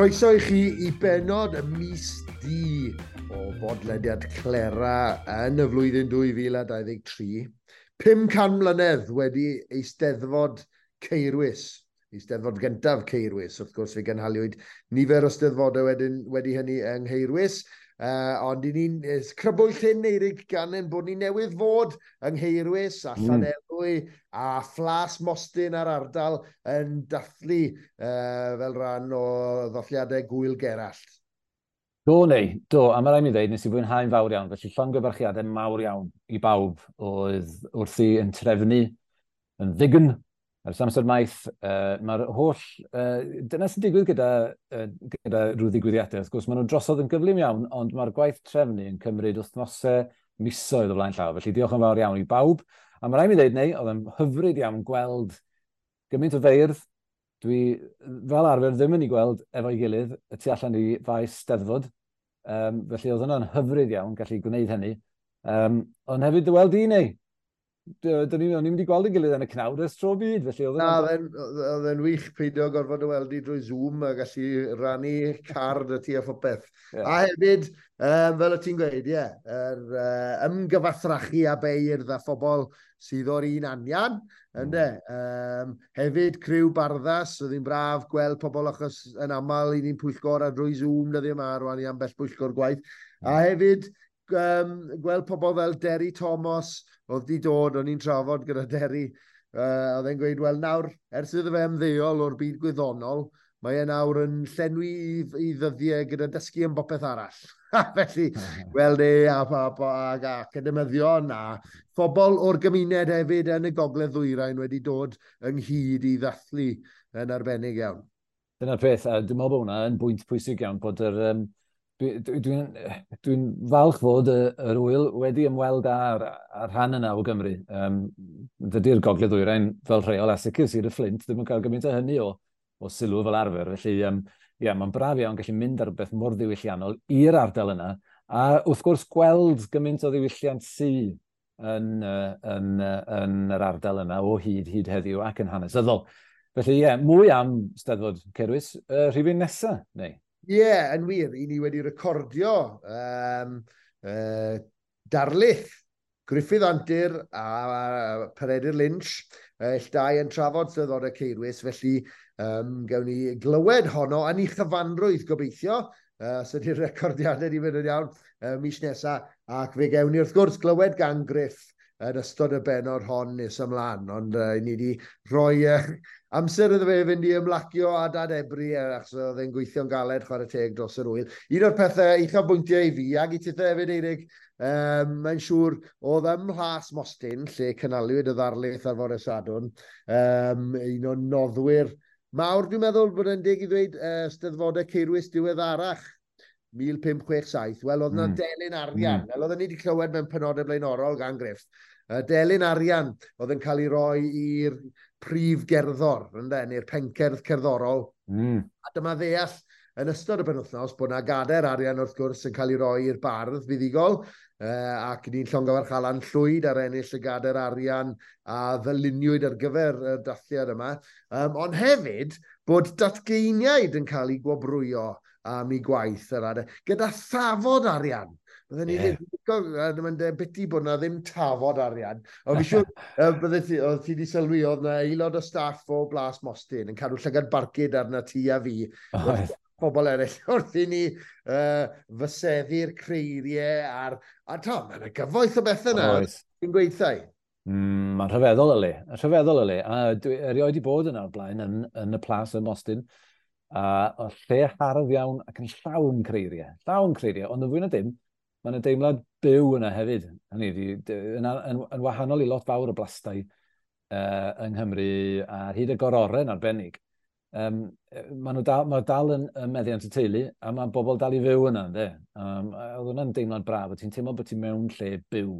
Croeso i chi i benod y mis di o bodlediad Clera yn y flwyddyn 2023. 500 mlynedd wedi Eisteddfod Caerwys, Eisteddfod gyntaf Caerwys. Wrth gwrs, fe gynhaliwyd nifer o steddfodau wedyn, wedi hynny yng Nghaerwys. Ond i ni'n crybwyll hyn, Eirig, gan ein bod ni newydd fod yng Nghaerwys a Llanelwy a Phlas Mostyn a'r ardal yn dathlu fel rhan o ddathliadau Gŵyl Gerallt. Do, neu, do, a mae rhaid mi ddweud, nes i fwynhau'n fawr iawn, felly llongyfarchiadau mawr iawn i bawb oedd wrthi yn trefnu yn ddign ers amser maith. Mae'r holl... Dyna sy'n digwydd gyda rhyw ddigwyddiadau. Wrth gwrs, maen nhw'n drosodd yn gyflym iawn, ond mae'r gwaith trefnu yn cymryd wythnosau, misoedd o flaen llaw. Felly diolch yn fawr iawn i bawb. A mae rhaid mi ddweud, neu, oedd yn hyfryd iawn gweld gymaint o feirdd. Dwi fel arfer ddim yn ei gweld efo'i gilydd y tu allan i faes Steddfod. Felly oedd hwnna'n hyfryd iawn gallu gwneud hynny. Ond hefyd dy weld i, neu? Dyn ni, o'n i'n mynd i gweld yn gilydd yn y cnawd ers tro byd, felly oedd Na, oedd e'n wych peidio gorfod y weld i drwy Zoom a gallu rannu car dy ti a phopeth. A hefyd, fel o ti'n gweud, ie, yr ymgyfathrachu a beirdd a phobl sydd o'r un anian, ynde. Hefyd, criw Barddas, oedd hi'n braf gweld pobl achos yn aml i ni'n pwyllgor a drwy Zoom dyddiau yma rwan i ambell pwyllgor gwaith. A hefyd, gweld pobl fel Derry Thomas, oedd di dod, o'n i'n trafod gyda Derry, oedd e'n gweud, wel nawr, ers iddo fe ymddeol o'r byd gwyddonol, mae e nawr yn llenwi i ddyddiau gyda dysgu am bopeth arall. Felly, gweld e a academyddion a phobl o'r gymuned hefyd yn y Gogledd Ddwyrain wedi dod ynghyd i ddathlu yn arbennig iawn. Dyna'r peth, a dwi'n meddwl bod hwnna yn bwynt pwysig iawn, bod yr... Dwi'n falch fod yr ŵyl wedi ymweld â'r rhan yna o Gymru. Dydy'r Gogledd Ddwyrain fel rheol a sicr Sir y Fflint ddim yn cael gymaint o hynny o sylw fel arfer. Felly, ie, mae'n braf iawn gallu mynd ar rhywbeth mor ddiwylliannol i'r ardal yna. A wrth gwrs gweld gymaint o ddiwylliant sy yn yr ardal yna o hyd heddiw ac yn hanesyddol. Felly, ie, mwy am Steddfod Caerwys rhifyn nesa, neu? Ie, yeah, yn wir, i ni wedi recordio darlith Gruffydd Antur a Peredur Lynch, ill dau yn trafod Steddfodau Caerwys, felly gawn ni glywed honno yn ei chyfanrwydd gobeithio, os ydy'r recordiadau wedi mynd yn iawn mis nesaf, ac fe gawn ni wrth gwrs glywed gan Gruff yn ystod y bennod hon nes ymlaen, ond ni wedi rhoi amser iddo fe fynd i ymlacio a dadebru, achos oedd e'n gweithio'n galed chwarae teg dros yr ŵyl. Un o'r pethau uchafbwyntiau i fi, ac i tithe hefyd, Eirig, mae'n siŵr oedd ym Mhlas Mostyn, lle cynhaliwyd y ddarlith ar fore Sadwrn, un o'n noddwyr mawr, dwi'n meddwl bod e'n deg i ddweud, Steddfodau Caerwys diweddarach, 1567. Wel, oedd yna delyn arian, fel oedden ni wedi clywed mewn penodau blaenorol gan Gruff. Delyn arian oedd yn cael ei roi i'r prif gerddor, ynde, neu'r pencerdd cerddorol. A dyma ddeall yn ystod y penwythnos bod yna gadair arian wrth gwrs yn cael ei roi i'r bardd fuddugol, ac ni'n llongyfarch Alan Llwyd ar ennill y gadair arian a ddyluniwyd ar gyfer y dathliad yma. Ond hefyd bod datgeiniaid yn cael eu gwobrwyo am eu gwaith yr adeg, gyda thafod arian. Bydden ni ddim yn gwybod, mae'n debyg bod na ddim tafod arian. Ond fi siŵr, bydde ti, oedd ti wedi sylwi, oedd na aelod o staff o Blas Mostyn yn cadw llygad barcud arna ti a fi. Pobl eraill wrth i ni fyseddu'r creiriau a'r... A to, mae'n gyfoeth o bethau yna. Ti'n gweithio? Mae'n rhyfeddol y le. Rhyfeddol y le. A dwi erioed wedi bod yna o'r blaen yn y Plas ym Mostyn. A o lle hardd iawn ac yn llawn creiriau. Llawn creiriau, ond yn fwy na dim, mae yna deimlad byw yna hefyd. Hynny ydi, yn wahanol i lot fawr o blastai yng Nghymru ar hyd y gororen arbennig. Mae nhw dal, mae dal yn meddiant y teulu, a mae bobl dal i fyw yna, ynde? Oedd hwnna'n deimlad braf, ti'n teimlo bod ti'n mewn lle byw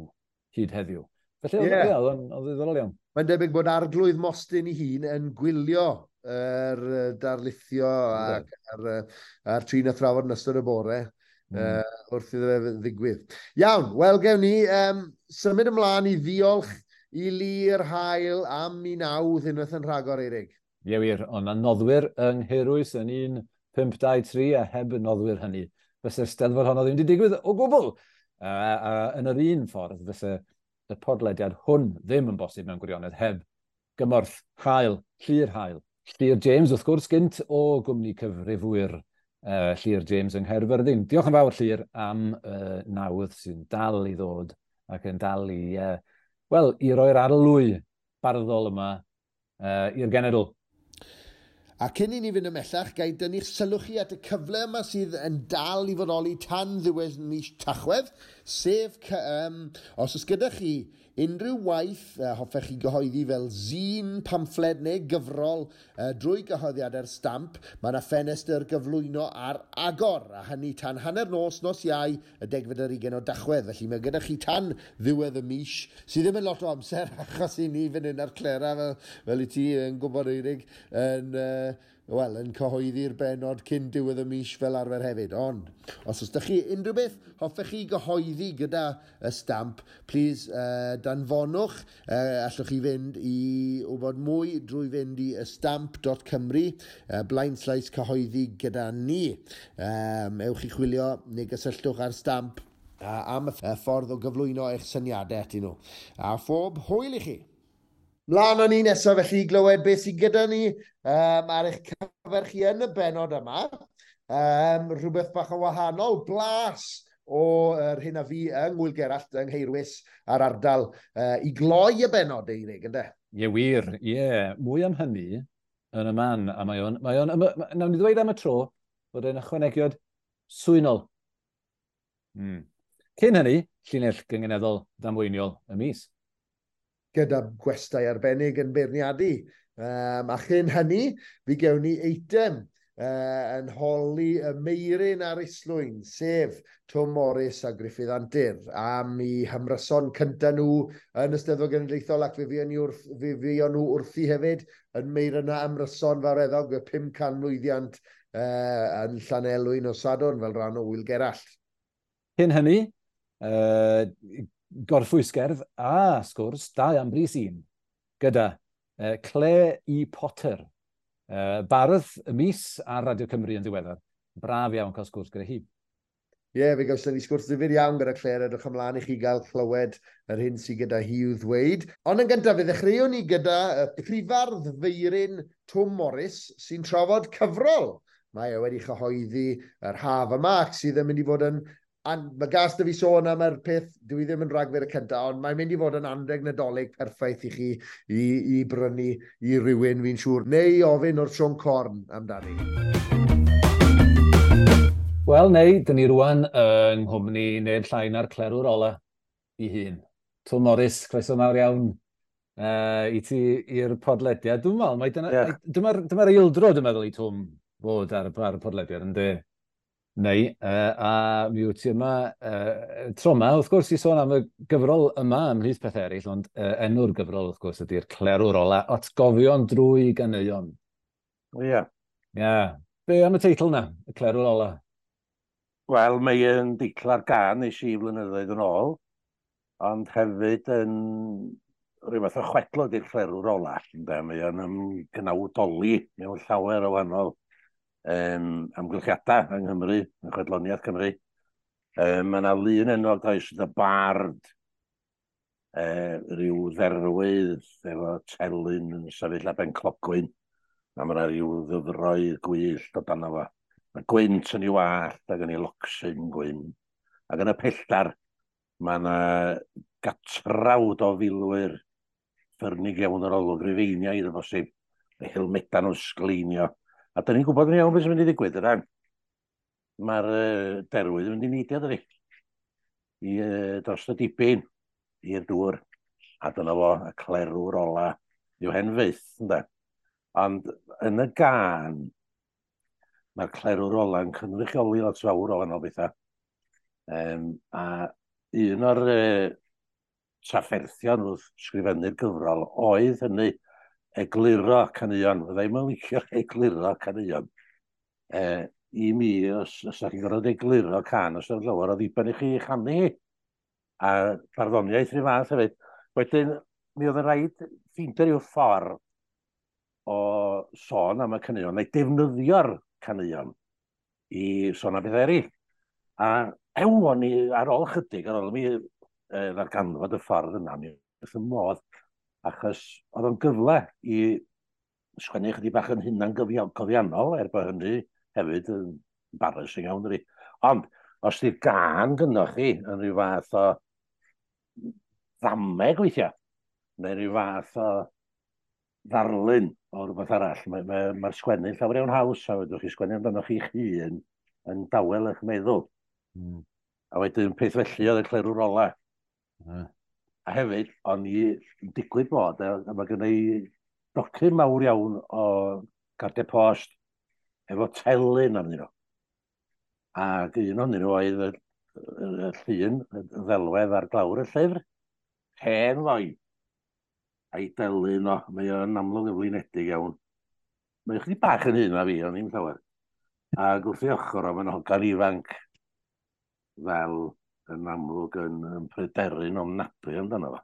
hyd heddiw. Felly, oedd o'n ddiddorol iawn. Mae'n debyg bod Arglwydd Mostyn ei hun yn gwylio yr darlithio ac a'r trin a thrafod yn ystod y bore wrth iddo fe ddigwydd. Iawn, wel gewn ni symud ymlaen i ddiolch i Lir Hael am mi nawdd unwaith yn rhagor, Eirig. Ie wir, ond mae noddwyr yng Nghaerwys yn un 5, 2, 3 a heb y noddwyr hynny, fysa'r Steddfod honno ddim wedi digwydd o gwbl. A yn yr un ffordd, fysa y podlediad hwn ddim yn bosib mewn gwirionedd heb gymorth hael, Llyr Hael. Llyr James, wrth gwrs, gynt o gwmni cyfrifwyr Llyr James yng Nghaerfyrddin. Diolch yn fawr, Llyr, am nawdd sy'n dal i ddod ac yn dal i, wel, i roi'r arlwy barddol yma i'r genedl. A cyn i ni fynd ymhellach, ga i dynnu'ch sylw chi at y cyfle yma sydd yn dal i fodoli tan ddiwedd mis Tachwedd, sef os oes gyda chi unrhyw waith hoffech chi gyhoeddi fel zine, pamffled neu gyfrol drwy gyhoeddiadau'r Stamp, mae yna ffenestr gyflwyno ar agor, a hynny tan 12:30 nos Iau y 20 o Dachwedd. Felly mae gyda chi tan ddiwedd y mis, sydd ddim yn lot o amser achos i ni fan hyn ar Clera, fel i ti yn gwybod, Eirig, yn, wel, yn cyhoeddi'r benod cyn diwedd y mis fel arfer hefyd. Ond, os oes ydych chi unrhyw beth hoffech chi gyhoeddi gyda y Stamp, please danfonwch. Allwch chi fynd i wybod mwy drwy fynd i ystamp.cymru, blaenslaes cyhoeddi gyda ni. Ewch i chwilio neu gysylltwch ar Stamp am y ffordd o gyflwyno eich syniadau atyn nhw. A phob hwyl i chi! Mlaen â ni nesaf felly i glywed beth sydd gyda ni ar eich cyfer chi yn y benod yma. Rhywbeth bach o wahanol, blas o yr hyn a fi yng Ngŵyl Gerallt yng Ngheirwys a'r ardal i gloi y benod, Eirig, ynde? Ie, wir, ie. Mwy am hynny yn y man, a mae o'n, nawn ni ddweud am y tro bod e'n ychwanegiad swynol. Cyn hynny, llinell gynganeddol damweiniol y mis. Gyda gwestai arbennig yn beirniadu. A chyn hynny, fi gewn ni eitem yn holi y Meiryn ar Islwyn, sef Twm Morys a Gruffudd Antur, am i hymryson cyntaf nhw yn y Steddfod Genedlaethol, ac fe fuon nhw wrthi hefyd yn Meiryn a ymryson fawreddog y 500 mlwyddiant yn Llanelwy nos Sadwrn fel rhan o Ŵyl Gerallt. Cyn hynny, gorffwysgerdd a sgwrs, dau am bris un, gyda Claire E. Potter, bardd y mis ar Radio Cymru yn ddiweddar. Braf iawn cael sgwrs gyda hi. Ie, yeah, fe gawson ni sgwrs ddifyr iawn gyda Claire, edrych ymlaen i chi gael clywed yr hyn sydd gyda hi i'w ddweud. Ond yn gyntaf, fe ddechreuwn ni gyda y prifardd Feiryn Twm Morys sy'n trafod cyfrol. Mae e wedi chyhoeddi yr haf yma ac sydd yn mynd i fod yn. Mae gas 'da fi sôn am yr peth, dwi ddim yn Rhagfyr y cyntaf, ond mae'n mynd i fod yn anreg Nadolig perffaith i chi i brynu i rywun, fi'n siŵr, neu i ofyn o'r Siôn Corn amdani. Wel, neu, dyn ni rwan yng nghwmni neb llai na'r clerwr ola i hun. Twm Morys, croeso mawr iawn i ti i'r podlediad. Dwi'n meddwl, mae dyna, yeah. Dyma'r dyma eildro, dwi'n meddwl, i Twm fod ar y podlediad, ynddi? Neu, a mi wyt ti yma tro yma, wrth gwrs, i sôn am y gyfrol yma ymhlith pethau eraill, ond enw'r gyfrol, wrth gwrs, ydy'r Clerwr Ola, Atgofion drwy ganeuon. Ie. Yeah. Ie. Yeah. Be am y teitl na, y Clerwr Ola? Wel, mae yn deitl ar gân nes i flynyddoedd yn ôl, ond hefyd yn rhyw fath o chwedl ydy'r Clerwr Ola. Ynde? Mae o'n ymgnawdoli mewn llawer o wahanol amgylchiadau yng Nghymru, yn chwedloniaeth Cymru. Mae yna lun enwog does, y bard, rhyw dderwydd efo telyn yn sefyll ar ben clogwyn, a mae yna rhyw ddyfroedd gwyllt o dan fo. Mae gwynt yn ei wallt ac yn ei locsyn gwyn. Ac yn y pelltar, mae yna gatrawd o filwyr ffyrnig iawn yr olwg, Rufeiniaid o bosib, y helmedau nhw'n sgleinio. A da ni'n gwybod yn iawn beth sy'n mynd i ddigwydd, yna. Mae'r derwydd yn mynd i neidio, dydi? I dros y dibyn, i'r dŵr. A dyna fo, y clerwr ola. Yw hen fyth, ynde? Ond yn y gân, mae'r clerwr ola yn cynrychioli lot fawr o wahanol bethau. A un o'r trafferthion wrth sgrifennu'r gyfrol oedd hynny egluro caneuon. Fydda i'm yn licio egluro caneuon. I mi, os ydych chi'n gorfod egluro cân, os ydych llawer o ddiben i chi chanu hi. A barddoniaeth rhyw fath hefyd. Wedyn, mi oedd yn rhaid ffeindio rhyw ffordd o sôn am y caneuon, neu defnyddio'r caneuon. i sôn am bethau eraill. A ew, o'n i ar ôl chydig, ar ôl mi ddarganfod y ffordd yna, mi wrth y modd, achos oedd o'n gyfle i sgwennu chydig bach yn hunan gofiannol, er bod hynny hefyd yn embarrassing iawn, dydi. Ond, os di'r gân gynnoch chi yn rhyw fath o ddameg weithiau, neu rhyw fath o ddarlun o rhywbeth arall, mae'r mae sgwennu'n llawer iawn haws, a fedrwch chi sgwennu amdano chi'ch hun yn dawel eich meddwl. A wedyn peth felly oedd y clerwr ola. A hefyd, o'n i yn digwydd bod, a mae gen i docyn mawr iawn o gardiau post efo telyn arnyn nhw. Ac un ohonyn nhw oedd y llun, y ddelwedd ar glawr y llyfr, hen foi, a'i delyn o, mae o'n amlwg yn flinedig iawn. Mae o chydig bach yn hŷn na fi, ond ddim llawer. Ac wrth ei ochr o, mae'n hogan ifanc fel yn amlwg yn pryderu'n ofnadwy amdano fo.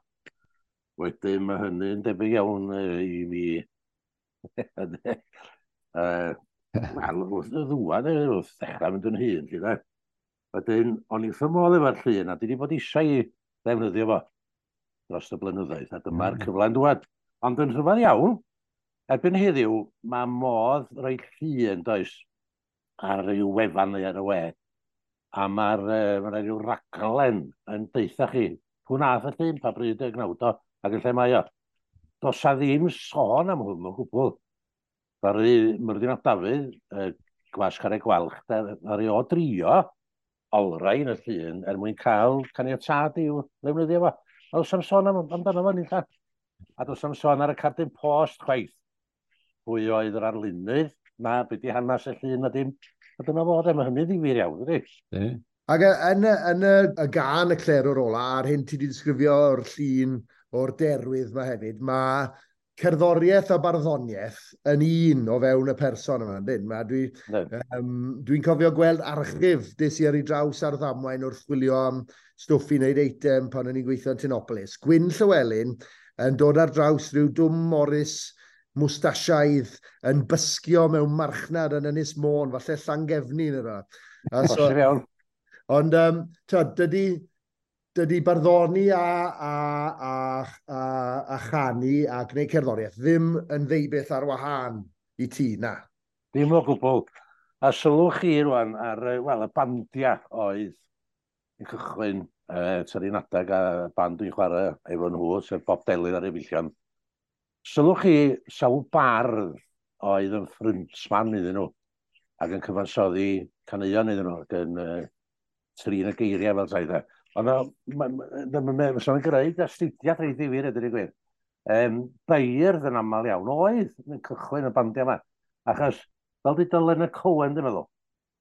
Wedyn mae hynny'n debyg iawn i mi. Wel, wrth y ddŵad, wrth ddechrau mynd yn hŷn, lly de. Wedyn, o'n i wrth fy modd efo'r llun, a dwi wedi bod eisiau i ddefnyddio fo dros y blynyddoedd, a dyma'r cyfle'n dŵad. Ond yn rhyfedd iawn, erbyn heddiw, mae modd rhoi llun, does, ar ryw wefan neu ar y we, a mae'r ma rhyw raglen yn deutha chi, pwy nath y llun, pa bryd y gnawd o, ac yn lle mae o. Does a ddim sôn am hwn o gwbl. Ddaru Myrddin ap Dafydd, Gwas Carreg Gwalch, ddaru o drio olrhain y llun er mwyn cael caniatâd i'w ddefnyddio fo. A does am sôn amdano fo nunlla. A does am sôn ar y cardyn post chwaith. Pwy oedd yr arlunydd, na be di hanes y llun na dim. A dyna fo, de, mae hynny'n ddifyr iawn, dydi? Ac yn y gân y clerwr ola, a'r hyn ti wedi disgrifio o'r llun o'r derwydd yma hefyd, mae cerddoriaeth a barddoniaeth yn un o fewn y person yma, yndyn? Dwi'n cofio gweld archif des i ar ei draws ar ddamwain wrth chwilio am stwff i wneud eitem pan o'n i'n gweithio yn Tinopolis. Gwyn Llywelyn yn dod ar draws rhyw Dwm Morris mwstasiaidd yn bysgio mewn marchnad yn Ynys Môn, falle Llangefni neu rywbeth. Bosib iawn. Ond dydy barddoni a chanu a gwneud cerddoriaeth ddim yn ddeubeth ar wahân i ti, na. Ddim o gwbl. A sylwch chi rwan ar y bandiau oedd yn cychwyn tua'r un adeg a band dwi'n chwarae efo nhw, sef Bob Delyn a'r Efeillion. Sylwch chi sawl bardd oedd yn ffryntman iddyn nhw ac yn cyfansoddi caneuon iddyn nhw ac yn trin y geiriau fel tai. Ond mae'n greu astudiad reit ddifyr, ydy'r gwir. Beirdd yn aml iawn oedd yn cychwyn y bandiau yma. Achos, fel di Leonard Cohen, dwi'n meddwl,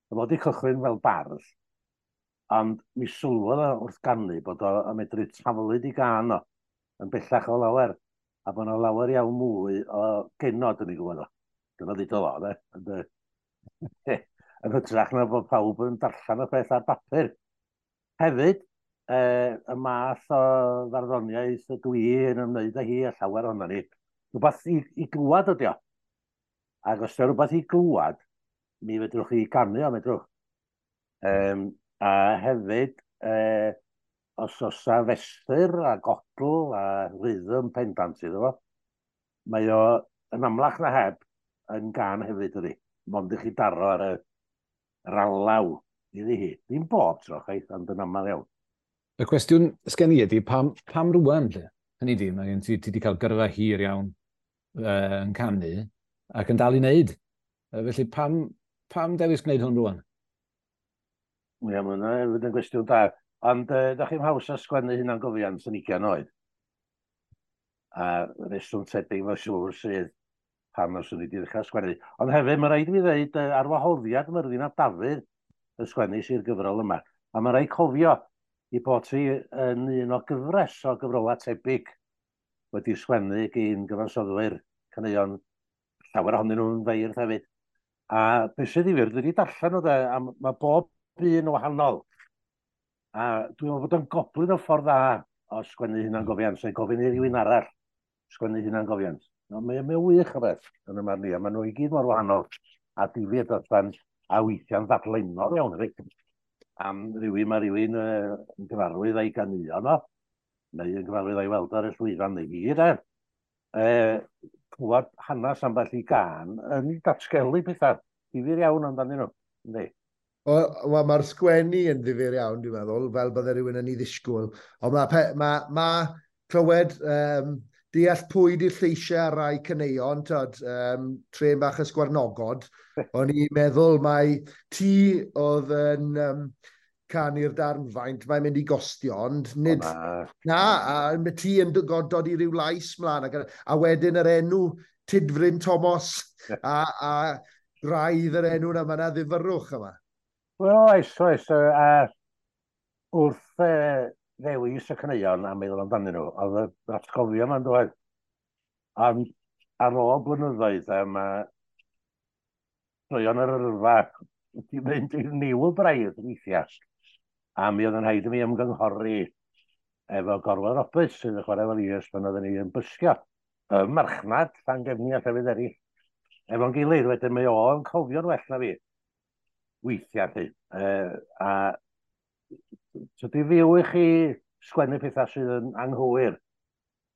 oedd wedi cychwyn fel bardd, ond mi sylwodd o wrth ganu bod o yn medru taflud i gân o, yn bellach o lawer, a bod yna lawer iawn mwy o genod yn ei gwybod o. Dyna ddudodd o, de. Ond, yn hytrach na bod pawb yn darllen y peth ar bapur. Hefyd, y math o farddoniaeth dwi yn ymwneud â hi a llawer ohono ni, rhywbeth i glwad ydi o. Ac os ydy rhywbeth i glwad, mi fedrwch chi ganu o, medrwch. A hefyd, os oes 'na fesur a godl a rhythm pendant iddo fo, mae o yn amlach na heb yn gân hefyd ydi. Mond i chi daro ar yr alaw iddi hi. Ddim bob tro, chwaith, ond yn aml iawn. Y cwestiwn sgen i ydi, pam rŵan, lle? Hynny ydi, mae gen ti wedi cael gyrfa hir iawn yn canu ac yn dal i wneud. Felly, pam dewis gwneud hwn rŵan? Ie, mae hwnna hefyd yn gwestiwn da. Ond da chi'n haws a sgwennu hunangofiant yn 20 oed. A reswm tebyg mae'n siŵr sydd pam os o'n i wedi dechrau sgwennu. Ond hefyd, mae rhaid i fi ddeud, ar wahoddiad Myrddin ap Dafydd y sgwennu sy'r gyfrol yma. A mae rhaid cofio i bod hi yn un o gyfres o gyfrolau tebyg wedi sgwennu gyn gyfansoddwyr caneuon, llawer ohonyn nhw'n feirdd hefyd. A beth sydd ddifyr, dwi wedi darllen o de, a mae bob un yn wahanol. A dwi'n meddwl bod o'n goblyn o ffordd dda o sgwennu hunangofiant, neu gofyn i rywun arall sgwennu hunangofiant. No, mae wych o beth yn y marn i, a maen nhw i gyd mor wahanol a difyr dros ben. A weithiau'n ddadlennol iawn, hefyd. Am rywun, mae rhywun yn gyfarwydd a'i ganeuon o, neu yn gyfarwydd a'i weld ar y llwyfan neu fi, de. Clywed hanes ambell i gân yn datgelu pethau difyr iawn amdanyn nhw, yndi? Wel, mae'r sgwennu yn ddifyr iawn, dwi'n meddwl, fel bydde rhywun yn ei ddisgwyl. Ond mae clywed deall pwy di'r lleisiau ar rai caneuon, tyd, Trên Bach y Sgwarnogod, o'n i'n meddwl mai ti oedd yn canu'r darn faint mae'n mynd i gostio, ond nid. O, na. Na, a mae ti yn dod i ryw lais mlaen, a wedyn yr enw Tudfryn Thomas, a graidd yr enw yna, mae yna ddifyrrwch yma. Wel, oes, oes. A wrth ddewis y caneuon a meddwl amdanyn nhw, oedd yr atgofion yma'n dod. Ond ar ôl blynyddoedd, mae troion yr yrfa wedi mynd i'r niwl braidd weithiau. A mi oedd yn rhaid i mi ymgynghori efo Gorwel Roberts sydd yn chwarae fel is pan oedden ni yn bysgio. Y marchnad, Llangefni a llefydd eraill. Efo'n gilydd, wedyn mae o'n cofio'n well na fi. Weithiau, lly. A tydi fyw i chi sgwennu pethau sydd yn anghywir.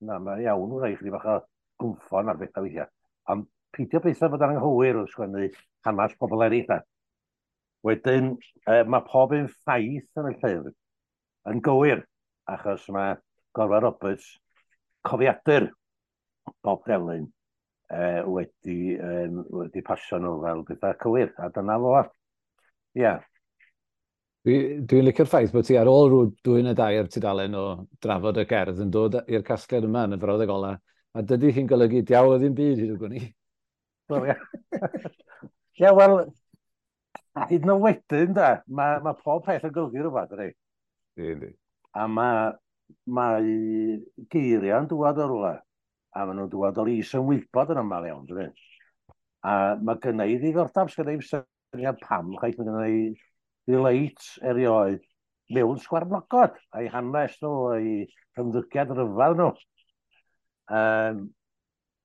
Na, mae iawn wrth i chi bach o gwmffon ar bethau weithiau. Ond peidio bethau bod yn anghywir wrth sgwennu hanes pobl eraill. Da. Wedyn, mae pob un ffaith yn y llyfr yn gywir, achos mae Gorwel Roberts, cofiadur Bob Delyn, wedi pasio nhw fel pethau cywir, a dyna fo. Ia. Dwi'n licio'r ffaith bod ti ar ôl rhyw 2 neu 3 tudalen o drafod y gerdd yn dod i'r casgliad yma yn y frawddeg ola, a dydy hi'n golygu diawl o ddim byd hyd y gwn i. Wel, ia. Ia, wel, hyd yn oed wedyn, da, mae pob peth yn golygu rhywbeth, ydy. Yndi. A mae geiriau'n dŵad o rywle, a maen nhw'n dŵad o'r is-ymwybod yn aml iawn, dydy. A mae gynna i ddiddordeb, sgynna i'm syniad pam, chwaith, mae gynna i ddileit erioed mewn sgwarnogod, a'i hanes nhw, a'i ymddygiad rhyfedd nhw.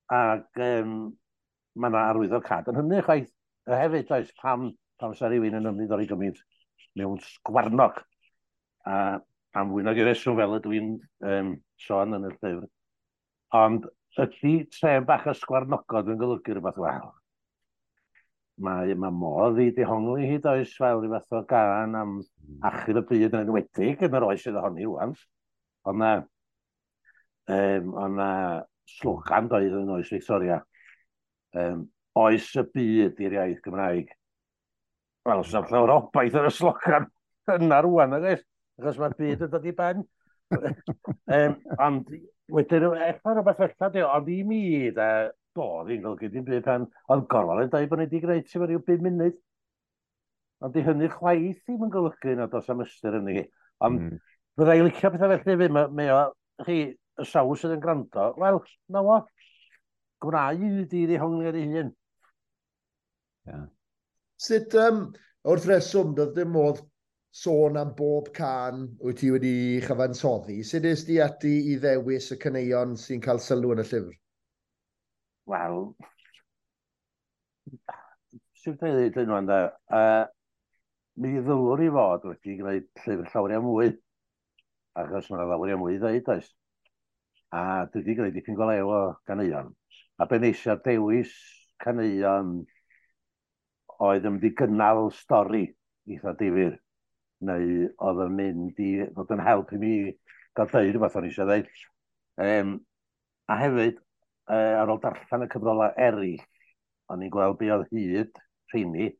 Ac mae yna arwyddocâd yn hynny, chwaith, hefyd, oes, pam sa rhywun yn ymddiddori gymaint mewn sgwarnog. A am fwy nag i reswm fel ydw i'n sôn yn y llyfr. Ond ydy Trên Bach y Sgwarnogod yn golygu rhywbeth? Wel, mae modd i dehongli hyd oes fel rhyw fath o gân am achub y byd yn enwedig yn yr oes sydd ohoni rŵan. Ond na slogan doedd yn oes Victoria. Oes y byd i'r iaith Gymraeg. Wel, os yna llawer o obaith ar y slogan yna rŵan, nag oes? Achos mae'r byd yn dod i ben. Ond wedyn, ella rhywbeth felly, di, ond i mi, da, do, ddim golygu dim byd pan oedd Gorwel yn dweud bod ni wedi gwneud ti ryw 5 munud. Ond di hynny chwaith ddim yn golygu nad oes am ystyr yn hi. Ond fydda i licio pethau felly hefyd, mae o, chi, y sawl sydd yn gwrando, wel, na fo, gwna i di ddehongli ar ei hun. Sut, wrth reswm, doedd dim modd sôn am bob cân wyt ti wedi chyfansoddi. Sut es di ati i ddewis y caneuon sy'n cael sylw yn y llyfr? Wel, sut dwi'n dweud hyn ŵan, de? Mi ddylwn i fod wedi gwneud llyfr llawer iawn mwy, achos mae yna lawer iawn mwy i ddeud, oes? A dwi wedi gwneud dipyn go lew o ganeuon. A be nes i ar dewis caneuon oedd yn mynd i gynnal stori eitha difyr, neu oedd yn mynd i fod yn help i mi gael deud rhywbeth o'n i eisiau ddeud. A hefyd, ar ôl darllen y cyfrolau eraill, o'n i'n gweld be oedd hyd rheini,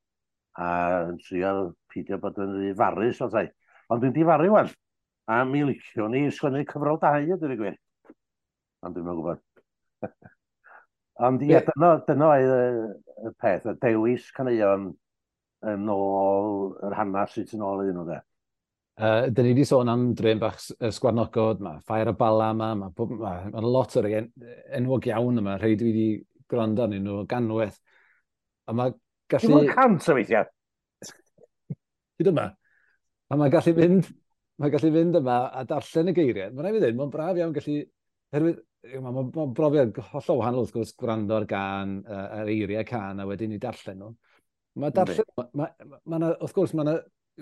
a yn trio peidio bod yn rhy farus, os ai. Ond dwi'n difaru wan, a mi liciwn i sgwennu cyfrol 2, a dweud y gwir. Ond dwi'm yn gwybod. Ond ie, dyna oedd y peth, y dewis caneuon yn ôl yr hanes sydd yn ôl iddyn nhw, de. Dyn ni wedi sôn am Drên Bach y Sgwarnogod, mae Ffair y Bala yma, mae lot o'r enwog iawn yma, rhai dwi wedi gwrando arnyn nhw ganwaith. A mae gallu Dim ond 100 o weithiau. Hyd yma. A mae gallu fynd, mae gallu fynd yma a darllen y geiriau. Mae'n rhaid i fi ddweud, mae'n braf iawn gallu, herwydd, ma brofiad hollol wahanol wrth gwrs gwrando ar gân, ar eiriau cân a wedyn i darllen nhw. Mae darllen, wrth gwrs, mae yna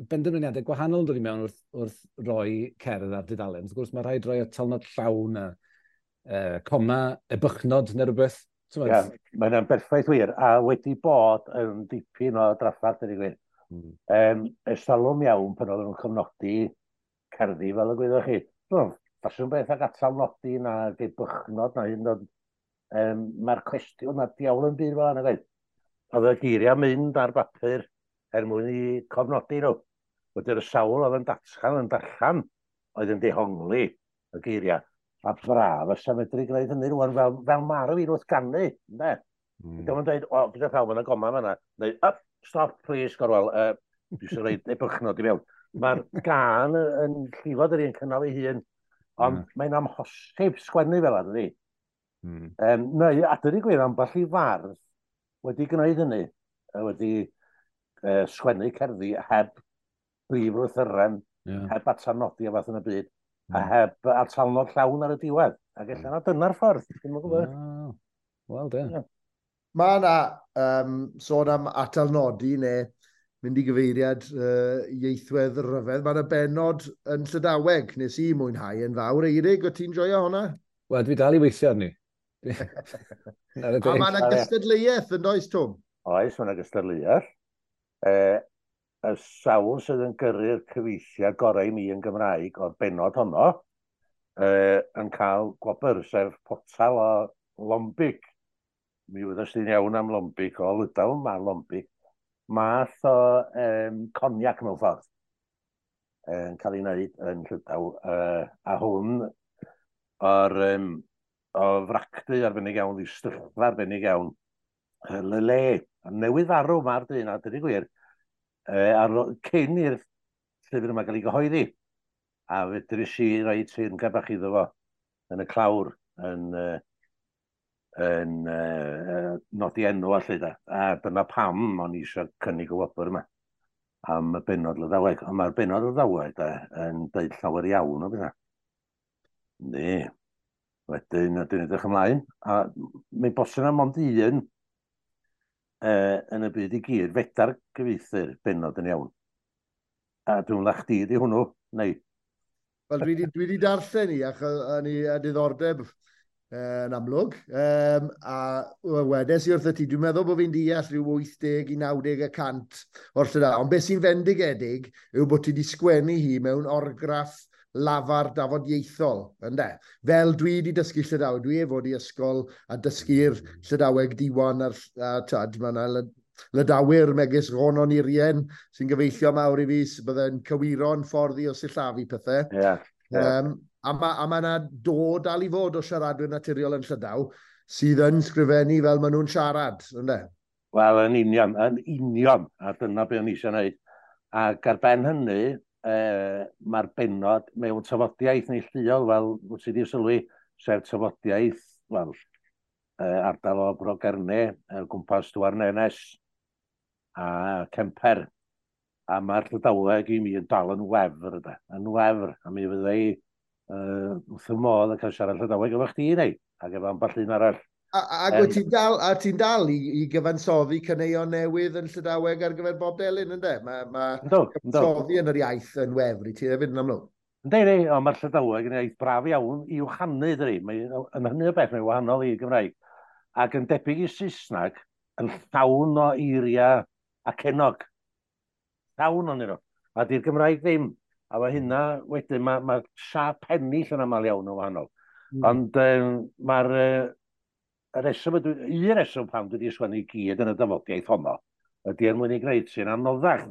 benderfyniadau gwahanol yn dod i mewn wrth roi cerdd ar dudalen. Wrth gwrs, mae rhaid rhoi atalnod llawn a coma, ebychnod neu rhywbeth. Ie, yeah, mae'n berffaith wir, a wedi bod yn dipyn o drafferth, ydy gwir. Ers talwm iawn pan oedden nhw'n cofnodi cerddi fel y gwyddoch chi. Ffasiwn beth ag atalnodi na ebychnod na hyn, mae'r cwestiwn na diawl yn byd fel yna gwaith. Oedd y geiriau mynd ar bapur er mwyn i cofnodi nhw. Wedi'r sawl oedd yn datgan yn darllen oedd yn dehongli y geiriau. A braf fysa medru gwneud hynny rwan fel mae'r fi wrth ganu, ynde? Dyma yn dweud, o, gyda llaw, mae'n goma fan'na. Neu, up, stop, please, Gorwel, dwi eisiau rhoi ebychnod i mewn. Mae'r gan yn llifod yr un cynnal ei hun, ond mae'n amhosib sgwennu fel yna, dydi? Neu, a dydi gwir, ambell i fardd wedi gwneud hynny, wedi sgwennu cerddi heb brif lythyren, heb atalnodi a fath yn y byd, a heb atalnod llawn ar y diwedd. Ac ella na dyna'r ffordd, dwi'm yn gwybod. Wel, de. Mae yna sôn am atalnodi neu mynd i gyfeiriad ieithwedd ryfedd. Mae yna bennod yn Llydaweg, nes i mwynhau yn fawr. Eirig, o ti'n joio hwnna? Wel, dwi dal i weithio arni. A mae yna gystadleuaeth yn does, Twm? Oes, mae yna gystadleuaeth. Y sawl sydd yn gyrru'r cyfieithiad gorau i mi yn Gymraeg o'r bennod honno yn cael gwobr, sef potal o Lombic. Mi wyddys ti'n iawn am Lombic, o Lydaw mae Lombic. Math o cognac mewn ffordd yn cael ei wneud yn Llydaw. A hwn o'r o fracdu arbennig iawn, ddistyllfa arbennig iawn, Lele. A newydd farw mae'r dyn, a dydy gwir, cyn i'r llyfr yma gael ei gyhoeddi. A fedrus i roi teyrngad bach iddo fo yn y clawr, yn nodi enw a lle da. A dyna pam o'n i eisiau cynnig y wobr yma am y bennod Lydaweg. Ond mae'r bennod Lydaweg yn deud llawer iawn o bethau. Yndi. Wedyn, dwi'n edrych ymlaen. A mae'n bosib na mond un yn y byd i gyd, fedar gyfieithu'r bennod yn iawn. A dwi'n meddwl chdi di hwnnw, neu? Wel, dwi wedi darllen i, ac o'n i a diddordeb yn amlwg. A wedes i wrth y ti, dwi'n meddwl bod fi'n deall rhyw 80 i 90% o'r Llydaw. Ond beth sy'n fendigedig yw bod ti wedi sgwennu hi mewn orgraff lafar dafodieithol, ynde? Fel dwi wedi dysgu Llydaweg, dwi efo di ysgol a dysgu'r Llydaweg diwan a'r tad, mae yna Lydawyr megis Ronon Irien sy'n gyfeillio mawr i fi, bydde'n cywiro'n ffordd i o sillafu pethau. Yeah, yeah. A mae yna dod dal i fod o siaradwyr naturiol yn Llydaw sydd yn sgrifennu fel maen nhw'n siarad, ynde? Wel, yn union, a dyna be o'n i eisiau gwneud. Ac ar ben hynny, mae'r bennod mewn tafodiaeth neilltuol, fel wyt ti wedi sylwi, sef tafodiaeth, wel, ardal o Bro Gerne, gwmpas Douarnenez a Kemper. A mae'r Llydaweg i mi yn dal yn wefr, yn wefr. A mi fydda i wrth y modd yn cael siarad Llydaweg efo chdi neu, ac efo ambell un arall. Ac ti'n dal i gyfansoddi caneuon newydd yn Llydaweg ar gyfer Bob Delyn, ynddo? Mae cyfansoddi yn yr iaith yn wefr i ti hefyd yn amlwg. Ynddi, ond mae'r Llydaweg yn iaith braf iawn i'w chanu, dydi. Yn hynny o beth, mae'n wahanol i Gymraeg. Ac yn debyg i Saesneg, yn llawn o eiriau acenog. Llawn o'n nhw. A di'r Gymraeg ddim. A mae hynna wedyn, mae siâp pennill yn aml iawn yn wahanol. Ond mae'r un reswm pam dwi wedi sgwennu i gyd yn y dafodiaeth honno ydy er mwyn ei gwneud sy'n anoddach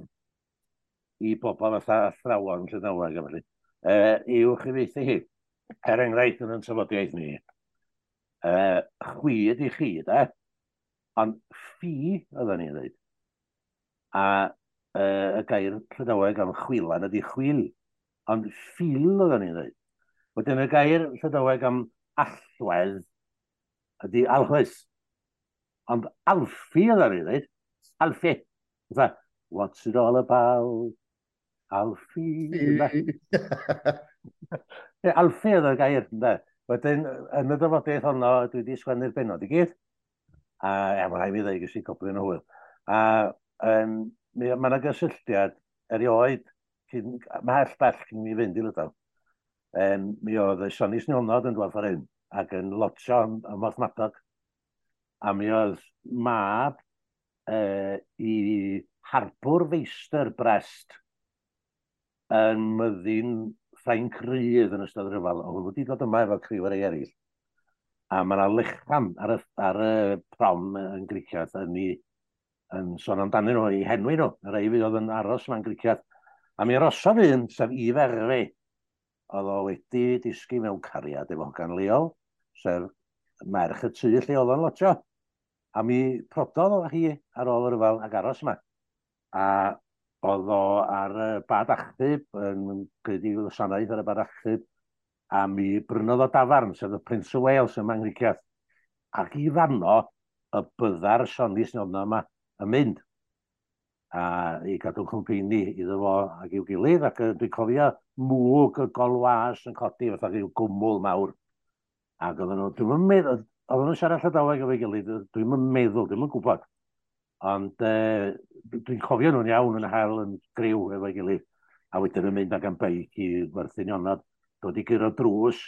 i bobl fatha athrawon Llydaweg a felly, i'w chyfieithu hi. Er enghraifft yn tafodiaeth ni, chwi ydi chi, de, ond ffi oedden ni'n dweud. A y gair Llydaweg am chwilan ydi chwil, ond ffil oedden ni'n dweud. Wedyn y gair Llydaweg am allwedd ydy alchwys. Ond alffi oedden ni'n dweud. Alffi. Fatha, what's it all about? Alffi. Alffi oedd y gair, ynde. Wedyn, yn y dyfodiaeth honno, dwi wedi sgwennu'r bennod i gyd. A mae'n rhaid mi ddweud, ges i goblyn o hwyl. A Mae yna gysylltiad erioed, cyn, mhell bell cyn mi fynd i Lydaw. Mi oedd y Sionis Nionod yn dod ffordd hyn ac yn lotio ym Mhorthmadog. A mi oedd mab i harbwr feistr Brest yn myddin Ffrainc Rydd yn ystod y rhyfel. Oedd wedi dod yma efo criw ar ei eraill. A mae yna lechan ar y prom yn Griciath yn, i, yn sôn amdanyn nhw, i henwi nhw, y rhai fydd oedd yn aros yma'n Griciath. A mi arosodd un, sef Yves Hervé, oedd o wedi disgu mewn cariad efo hogan leol, sef merch y tŷ lle oedd o'n lotio. A mi prododd o hi ar ôl y rhyfel ac aros yma. A oedd o ar y bad achub, yn gwneud i wasanaeth ar y bad achub, a mi brynodd o dafarn, sef y Prince of Wales yma yng Nghricieth. Ac i fanno, y bydda'r Sionis Nionod yma yn mynd a i gadw cwmpeini iddo fo ac i'w gilydd, ac dwi'n cofio mwg y golwas yn codi fatha rhyw gwmwl mawr. Ac oedden nhw, dwi'm yn meddwl, oedden nhw'n siarad Llydaweg efo'i gilydd, dwi'm yn meddwl, dwi'm yn gwybod. Ond dwi'n cofio nhw'n iawn yn hel yn griw efo'i gilydd. A wedyn yn mynd ag am beic i werthu nionod, dod i guro drws,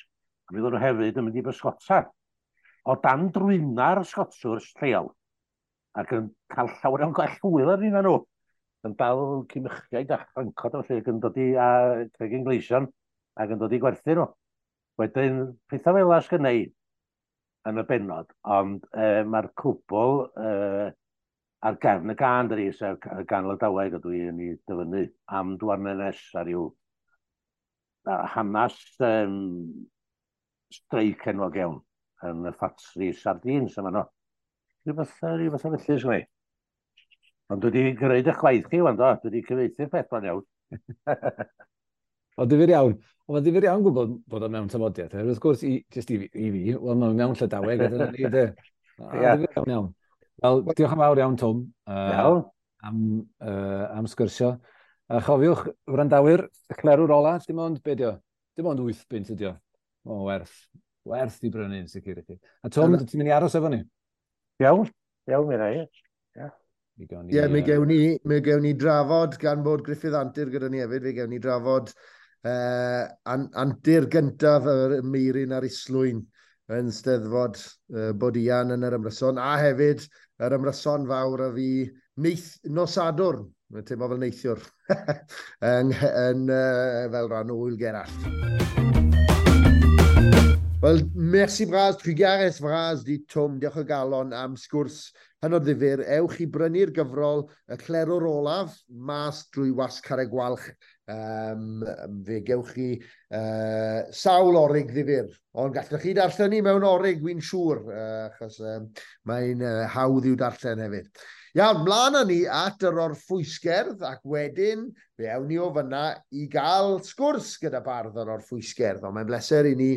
a mi oedden nhw hefyd yn mynd i bysgota. O dan drwyna'r sgotswrs lleol, ac yn cael llawer iawn gwell hwyl ar nhw. Yn dal cimychiaid a chrancod a felly, ac yn dod i a cregyn gleision, ac yn dod i gwerthu nhw. Wedyn, pethau fel 'na sgynna i yn y bennod, ond mae'r cwbl ar gefn y gân, dydi, sef y gân Lydaweg ydw i yn ei dyfynnu am Douarnenez ar ryw hanes streic enwog iawn yn y ffatri sardines yma no. Rhywbeth felly, sgynna i. Ond dwi wedi gwneud eich gwaith chi, wan do. Dwi wedi cyfieithu'r peth bron iawn. O, difyr iawn. Ond mae'n ddifyr iawn gwybod bod o mewn tafodiaeth. Wrth gwrs, jyst i fi, wel, mae'n mewn Llydaweg, a dyna ni, de. Difyr iawn iawn. Wel, diolch yn fawr iawn, Twm. Iawn. Am sgwrsio. A chofiwch, wrandawyr, y clerwr ola, dim ond, be dio? Dim ond 8 bunt ydi o. O, werth i brynu yn sicr i chi. A Twm, ti'n mynd i aros efo ni? Iawn, iawn, mi rai. Ie, mi gewn ni drafod, gan bod Gruffydd Antur gyda ni hefyd, fe gewn ni drafod antur gyntaf y Meiryn a'r Islwyn yn Steddfod Bod Ian yn yr ymryson, a hefyd yr ymryson fawr a fi nos Sadwrn, mae'n teimlo fel neithiwr, yn fel rhan o Ŵyl Gerallt. Wel, merci bras, trugarez vras di Twm, diolch o galon am sgwrs hynod ddifyr. Ewch i brynu'r gyfrol Y Clerwr Olaf, mas drwy Wasg Carreg Gwalch. Fe gewch chi sawl orig ddifyr. Ond gallwch chi darllen ni mewn orig, wy'n siŵr, achos mae'n hawdd i'w darllen hefyd. Iawn, mlaen â ni at yr orffwysgerdd, ac wedyn fe awn ni o fyna i gael sgwrs gyda bardd yr orffwysgerdd. Ond mae'n bleser i ni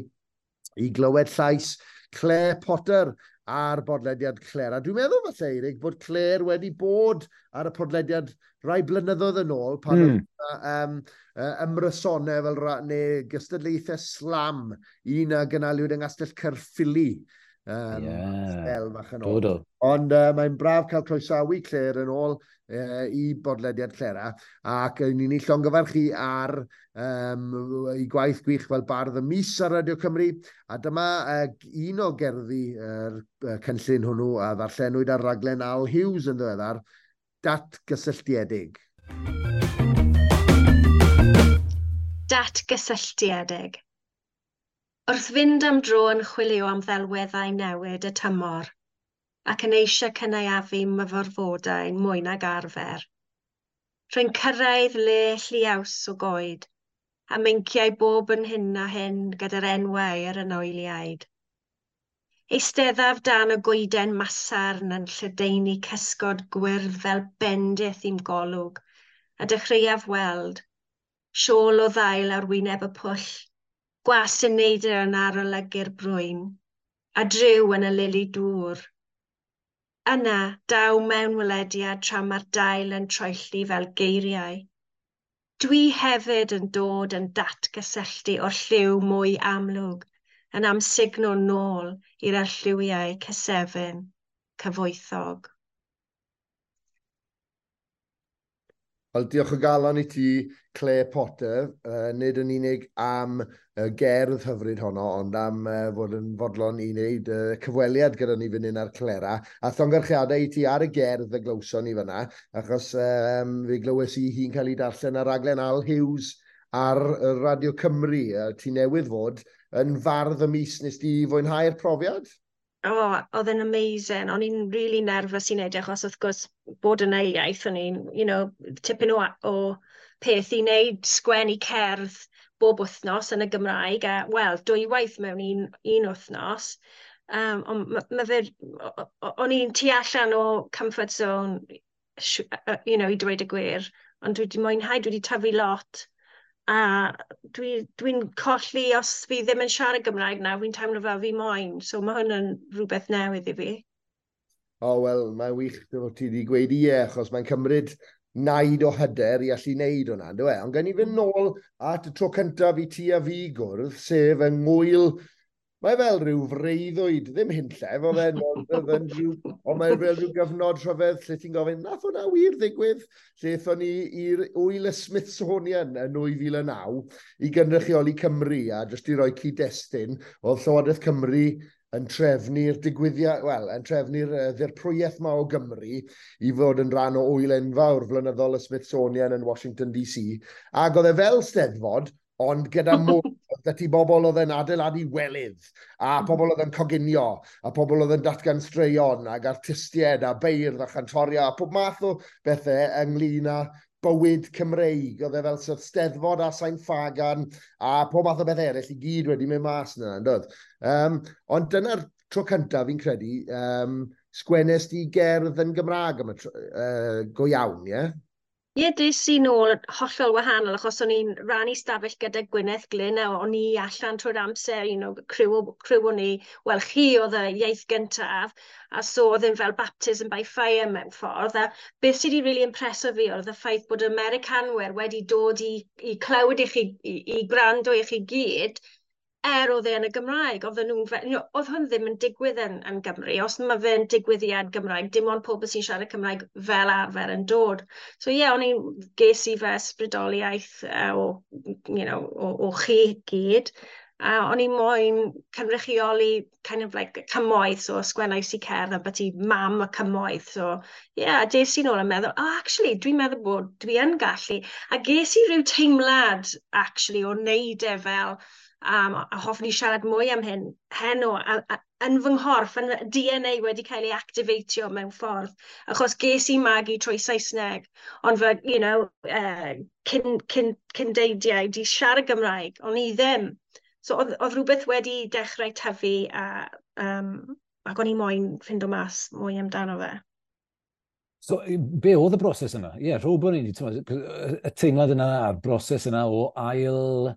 i glywed llais Claire Potter ar bodlediad Claire. A dwi'n meddwl falle, Eirig, bod Claire wedi bod ar y podlediad rai blynyddoedd yn ôl, pan oedd ymrysonau fel neu gystadlaethau slam, un a gynaliwyd yng Nghastell Caerffili. Sbel fach yn ôl. Ond mae'n braf cael croesawu Claire yn ôl i bodlediad Clera, ac ni'n ei llongyfarch chi ar ei gwaith gwych fel bardd y mis ar Radio Cymru, a dyma un o gerddi yr cynllun hwnnw a ddarllenwyd ar raglen Al Hughes yn ddiweddar, Datgysylltiedig. Datgysylltiedig. Wrth fynd am dro yn chwilio am ddelweddau newid y tymor, ac yn eisiau cynaeafu myfyrfodau mwy nag arfer. Rwy'n cyrraedd le lliaws o goed, a meinciau bob yn hyn a hyn gyda'r enwau yr anwyliaid. Eisteddaf dan y goeden masarn yn lledaenu cysgod gwyrdd fel bendith i'm golwg, a dechreuaf weld siôl o ddail ar wyneb y pwll, gwas yn neidr yn arolygu'r brwyn, a dryw yn y lili dŵr. Yna, daw mewnwelediad tra mae'r dail yn troelli fel geiriau. Dwi hefyd yn dod yn datgysylltu o'r lliw mwy amlwg, yn amsugno nôl i'r arlliwiau cysefin, cyfoethog. Wel, diolch o galon i ti, Claire Potter, nid yn unig am gerdd hyfryd honno, ond am fod yn fodlon i wneud cyfweliad gyda ni fan hyn ar Clera. A llongyfarchiadau i ti ar y gerdd y glywson ni fyna, achos fe glywes i hi'n cael ei darllen ar raglen Al Hughes ar Radio Cymru. Ti newydd fod yn fardd y mis, nes di fwynhau'r profiad? Oh, oedd e'n amazing. O'n i'n really nervous i wneud, e, achos wrth gwrs bod yn ail iaith, o'n i'n tipyn o peth i wneud sgwennu cerdd bob wythnos yn y Gymraeg, a wel, dwywaith mewn un wythnos. Ond ma fe, o'n i'n tu allan o comfort zone, i dweud y gwir, ond dwi wedi mwynhau, dwi wedi tyfu lot. A dwi'n dwi colli os fi ddim yn siarad Gymraeg nawr, fi'n teimlo fel fi moyn. So mae hwn yn rhywbeth newydd i fi. O, wel, mae'n wych bod ti wedi gweud ie, achos mae'n cymryd naid o hyder i allu wneud hwnna, ynddo e? Ond gen i fynd nôl at y tro cyntaf i ti a fi gwrdd, sef yng ngwyl. Mae fel rhyw freuddwyd, ddim hunllef, oedd e'n rhyw, ond mae fel rhyw gyfnod rhyfedd lle ti'n gofyn, nath hwnna wir ddigwydd? Lle aethon ni i'r Wyl y Smithsonian yn 2009 i gynrychioli Cymru, a jyst i roi cyd-destun, oedd Llywodraeth Cymru yn trefnu'r digwyddiad, wel, yn trefnu'r ddirprwyaeth ma o Gymru i fod yn rhan o wyl enfawr flynyddol y Smithsonian yn Washington DC. Ac oedd e fel steddfod, ond gyda mwy, oedd 'da ti bobl oedd yn adeiladu welydd, a pobl oedd yn coginio, a pobl oedd yn datgan straeon, ac artistiaid, a beirdd, a chantoria, a pob math o bethau ynglyn â bywyd Cymreig. Oedd e fel sort steddfod a Sain Ffagan, a pob math o beth eraill i gyd wedi mynd mas yna, yn doedd? Ond dyna'r tro cyntaf fi'n credu, sgwennes di gerdd yn Gymraeg am y tro, go iawn, ie? Ie, des i nôl hollol wahanol, achos o'n i'n rannu stafell gyda Gwyneth Glyn a o'n i allan trwy'r amser, criw o'n i, wel, chi oedd y iaith gyntaf, a so oedd e'n fel baptism by fire mewn ffordd, a beth sydd wedi really impreso fi oedd y ffaith bod y Americanwyr wedi dod i clywed i chi, i gwrando i chi gyd, er oedd e yn y Gymraeg, oedden nhw'n oedd hwn ddim yn digwydd yn Gymru. Os mae fe'n digwyddiad Gymraeg, dim ond pobl sy'n siarad Cymraeg fel arfer yn dod. So ie, yeah, o'n i'n ges i fe ysbrydoliaeth o, you know, o, o chi gyd. A o'n i moyn cynrychioli kind of like cymoedd, so sgwennais i cerdd ambyti mam y cymoedd. So ie, yeah, des i nôl yn meddwl, oh, actually, dwi'n meddwl bod dwi yn gallu. A ges i ryw teimlad, actually, o wneud e fel, a hoffwn i siarad mwy am hyn heno, a yn fy nghorff, yn DNA wedi cael ei activatio mewn ffordd, achos ges i magu trwy Saesneg, ond fy, cyn, cyn, cyndeidiau di siarad Gymraeg, ond i ddim. So oedd rhywbeth wedi dechrau tyfu ac o'n i moyn ffindo mas mwy amdano fe. So, be oedd y broses yna? Ie, yeah, rhywbeth ni, y teimlad yna a'r broses yna o ail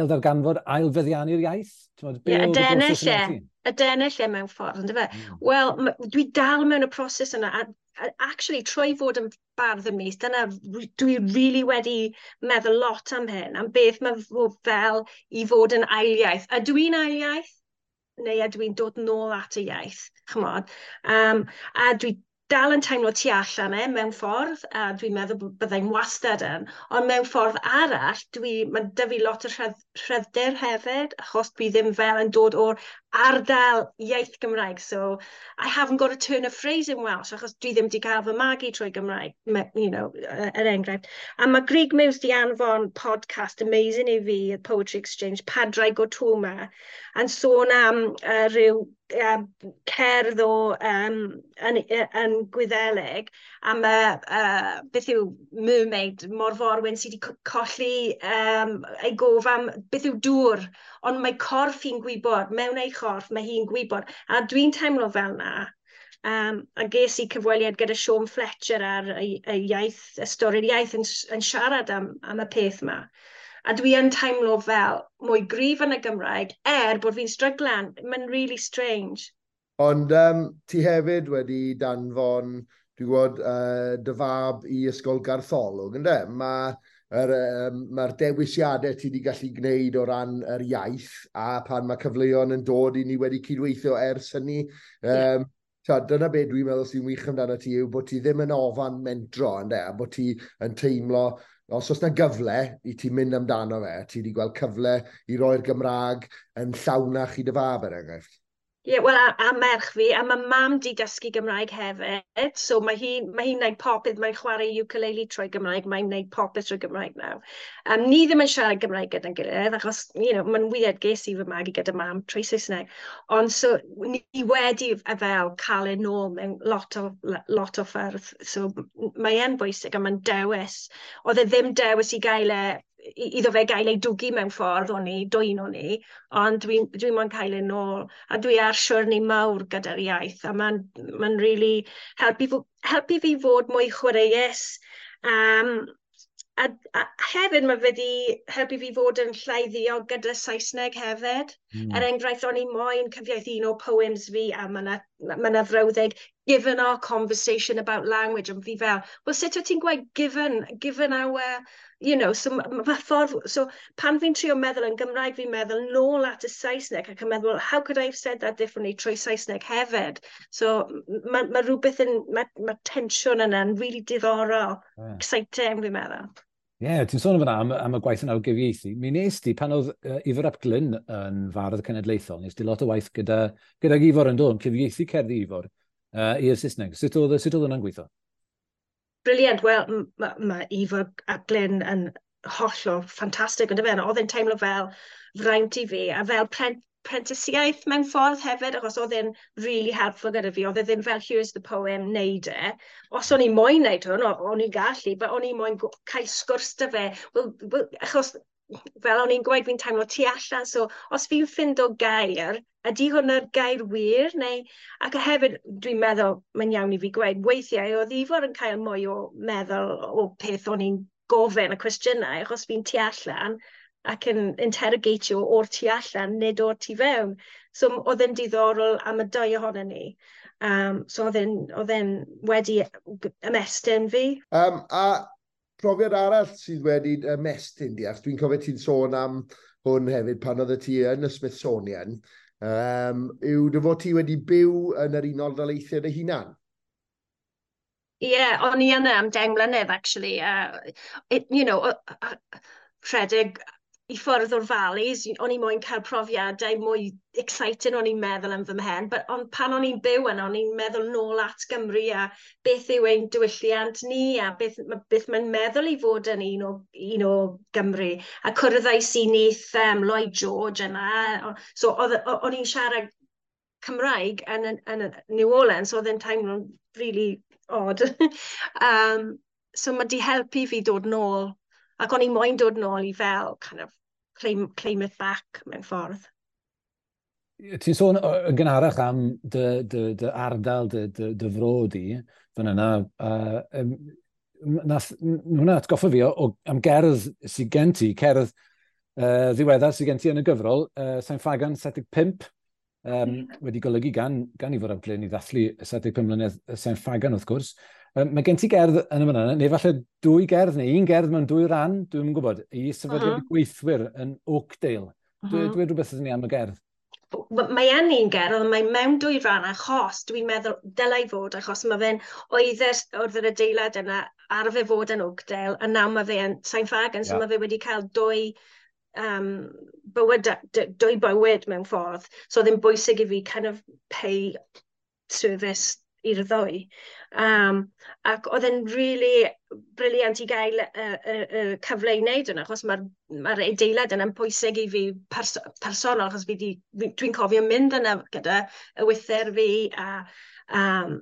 darganfod, ail feddiannu'r iaith? Be Ie, oedd y broses yna i ti? Adennill e mewn ffordd, ynddo fe? Wel, dwi dal mewn y proses yna, a actually, trwy fod yn bardd y mis, dyna dwi really wedi meddwl lot am hyn, am beth mae fod fel i fod yn ail iaith. Ydw i'n ail iaith? Neu ydw i'n dod nôl at y iaith, ch'mod? A dwi dal yn teimlo tu allan e mewn ffordd, a dwi'n meddwl bod byddai'n wastad yn, ond mewn ffordd arall, mae 'da fi lot o rhyddder hefyd, achos dwi ddim fel yn dod o'r ardal iaith Gymraeg, so I haven't got a turn of phrase in Welsh, achos dwi ddim wedi cael fy magu trwy Gymraeg, er enghraifft. A mae Grug Muse di anfon podcast amazing i fi, y Poetry Exchange, Padraig o Tuama, yn sôn am rhyw cerdd o yn Gwyddelig am y, beth yw mermaid, morforwyn sydd wedi colli ei gof am beth yw dŵr, ond mae corff hi'n gwybod, mewn ei chorff mae hi'n gwybod, a dwi'n teimlo fel na. A ges i cyfweliad gyda Sean Fletcher ar y iaith, y stori'r iaith yn siarad am y peth yma. A dwi yn teimlo fel mwy gryf yn y Gymraeg, er bod fi'n stryglan. Mae'n really strange. Ond ti hefyd wedi danfon, dwi'n gwybod, dy fab i Ysgol Gartholwg, ynde? Mae'r ma dewisiadau ti wedi gallu gwneud o ran yr iaith, a pan mae cyfleon yn dod i ni wedi cydweithio ers hynny, Ta, dyna be dwi'n meddwl sy'n wych amdano ti yw bod ti ddim yn ofan mentro, ynde, a bod ti yn teimlo, os oes na gyfle i ti mynd amdano fe, ti wedi gweld cyfle i roi'r Gymraeg yn llawnach i dy fab, er enghraifft. Ie, yeah, wel, a merch fi, a mae mam di dysgu Gymraeg hefyd, so mae hi'n mae hi wneud popeth, mae'n chwarae ukulele trwy Gymraeg, mae'n wneud popeth trwy Gymraeg nawr. Ni ddim yn siarad Gymraeg gyda'n gilydd, achos, you know, mae'n weird, ges i fy magu gyda mam trwy Saesneg. Ond so, ni wedi fel cael e nôl mewn lot o ffyrdd, so mae e'n bwysig a mae'n dewis. Oedd e ddim dewis i gael e, iddo fe gael ei dwgu mewn ffordd o'n i, dwyn o'n i, ond dwi moyn cael ei nôl, a dwi ar siwrne mawr gyda'r iaith, a mae'n ma really helpu fi fod mwy chwaraeus, a hefyd mae wedi helpu fi fod yn llai ddiog gyda Saesneg hefyd. Er enghraifft, o'n i moyn cyfieithu un o poems fi, a mae yna frawddeg, given our conversation about language, ond fi fel, well, sut wyt ti'n gweud given our, you know, so ma ffordd, so pan fi'n trio meddwl yn Gymraeg, fi'n meddwl nôl at y Saesneg, ac yn meddwl, how could I have said that differently trwy Saesneg hefyd? So mae rhywbeth yn, mae tensiwn yna'n really diddorol, exciting, fi'n meddwl. Ie, yeah, ti'n sôn fan'na am y gwaith yna o gyfieithu. Mi nes di, pan oedd Ifor ap Glyn yn fardd cenedlaethol, nes di lot o waith gydag Ifor yn dod, yn cyfieithu cerddi Ifor i'r Saesneg. Sut oedd hwnna'n gweithio? Brilliant. Wel, mae Ifor ap Glyn yn hollol ffantastig, ond fe, oedd e'n teimlo fel fraint i fi, a fel prentisiaeth mewn ffordd hefyd, achos oedd e'n really helpful gyda fi. Oedd e ddim fel, here's the poem, neud e. Os o'n i moyn neud hwn, o'n i'n gallu, but o'n i moyn cael sgwrs 'da fe. Well, achos fel o'n i'n gweud, fi'n teimlo tu allan, so os fi'n ffindo gair, ydy hwnna'r gair wir? Neu, ac hefyd, dwi'n meddwl, mae'n iawn i fi gweud, weithiau oedd Ifor yn cael mwy o meddwl o peth o'n i'n gofyn y cwestiynau, achos fi'n tu allan ac yn interrogatio o'r tu allan, nid o'r tu fewn. So oedd e'n diddorol am y dau ohonon ni. So oedd e'n wedi ymestyn fi. A profiad arall sydd wedi ymestyn di, achos dwi'n cofio ti'n sôn am hwn hefyd pan oedd ti yn y Smithsonian, yw dy fod ti wedi byw yn yr Unol Daleithiau dy hunan? Ie, yeah, o'n i yna am 10 mlynedd, actually. Rhedeg i ffwrdd o'r valleys, o'n i moyn cael profiadau mwy exciting o'n i'n meddwl am fy mhen, but on, pan o'n i'n byw yna, o'n i'n meddwl nôl at Gymru a beth yw ein diwylliant ni a beth mae'n meddwl i fod yn un o Gymru. A cwrddais i nith Lloyd George yna, so o'n i'n siarad Cymraeg yn New Orleans, so oedd e'n teimlo'n really odd. So mae di helpu fi dod nôl, ac o'n i moyn dod nôl i fel kind of claim it back mewn ffordd. Ti'n sôn yn gynharach am dy ardal, dy fro di, fan yna. Hwnna atgoffa fi am gerdd sydd gen ti, cerdd ddiweddar sydd gen ti yn y gyfrol, Sain Ffagan 75, wedi golygu gan Ifor ap Glyn i ddathlu 75 mlynedd Sain Ffagan, wrth gwrs. Mae gen ti gerdd yn y fan'na, neu falle dwy gerdd, neu un gerdd mewn dwy ran, dwi'n yn gwybod, i sefydliad gweithwyr yn Oakdale. Dwi rhywbeth ydyn ni am y gerdd? Mae yn un gerdd, ond mae mewn dwy ran achos dwi'n meddwl dylai fod, achos mae fe'n oedd yr adeilad yna arfer fod yn Oakdale, a nawr mae fe yn Sain Ffagan, so mae fe wedi cael dwy bywyd mewn ffordd. So oedd e'n bwysig i fi kind of pay service i'r ddwy. Ac oedd e'n really brilliant i gael y cyfle i wneud hwnna, achos mae'r adeilad yna'n bwysig i fi personol, achos dwi'n cofio mynd yna gyda y wyther fi, a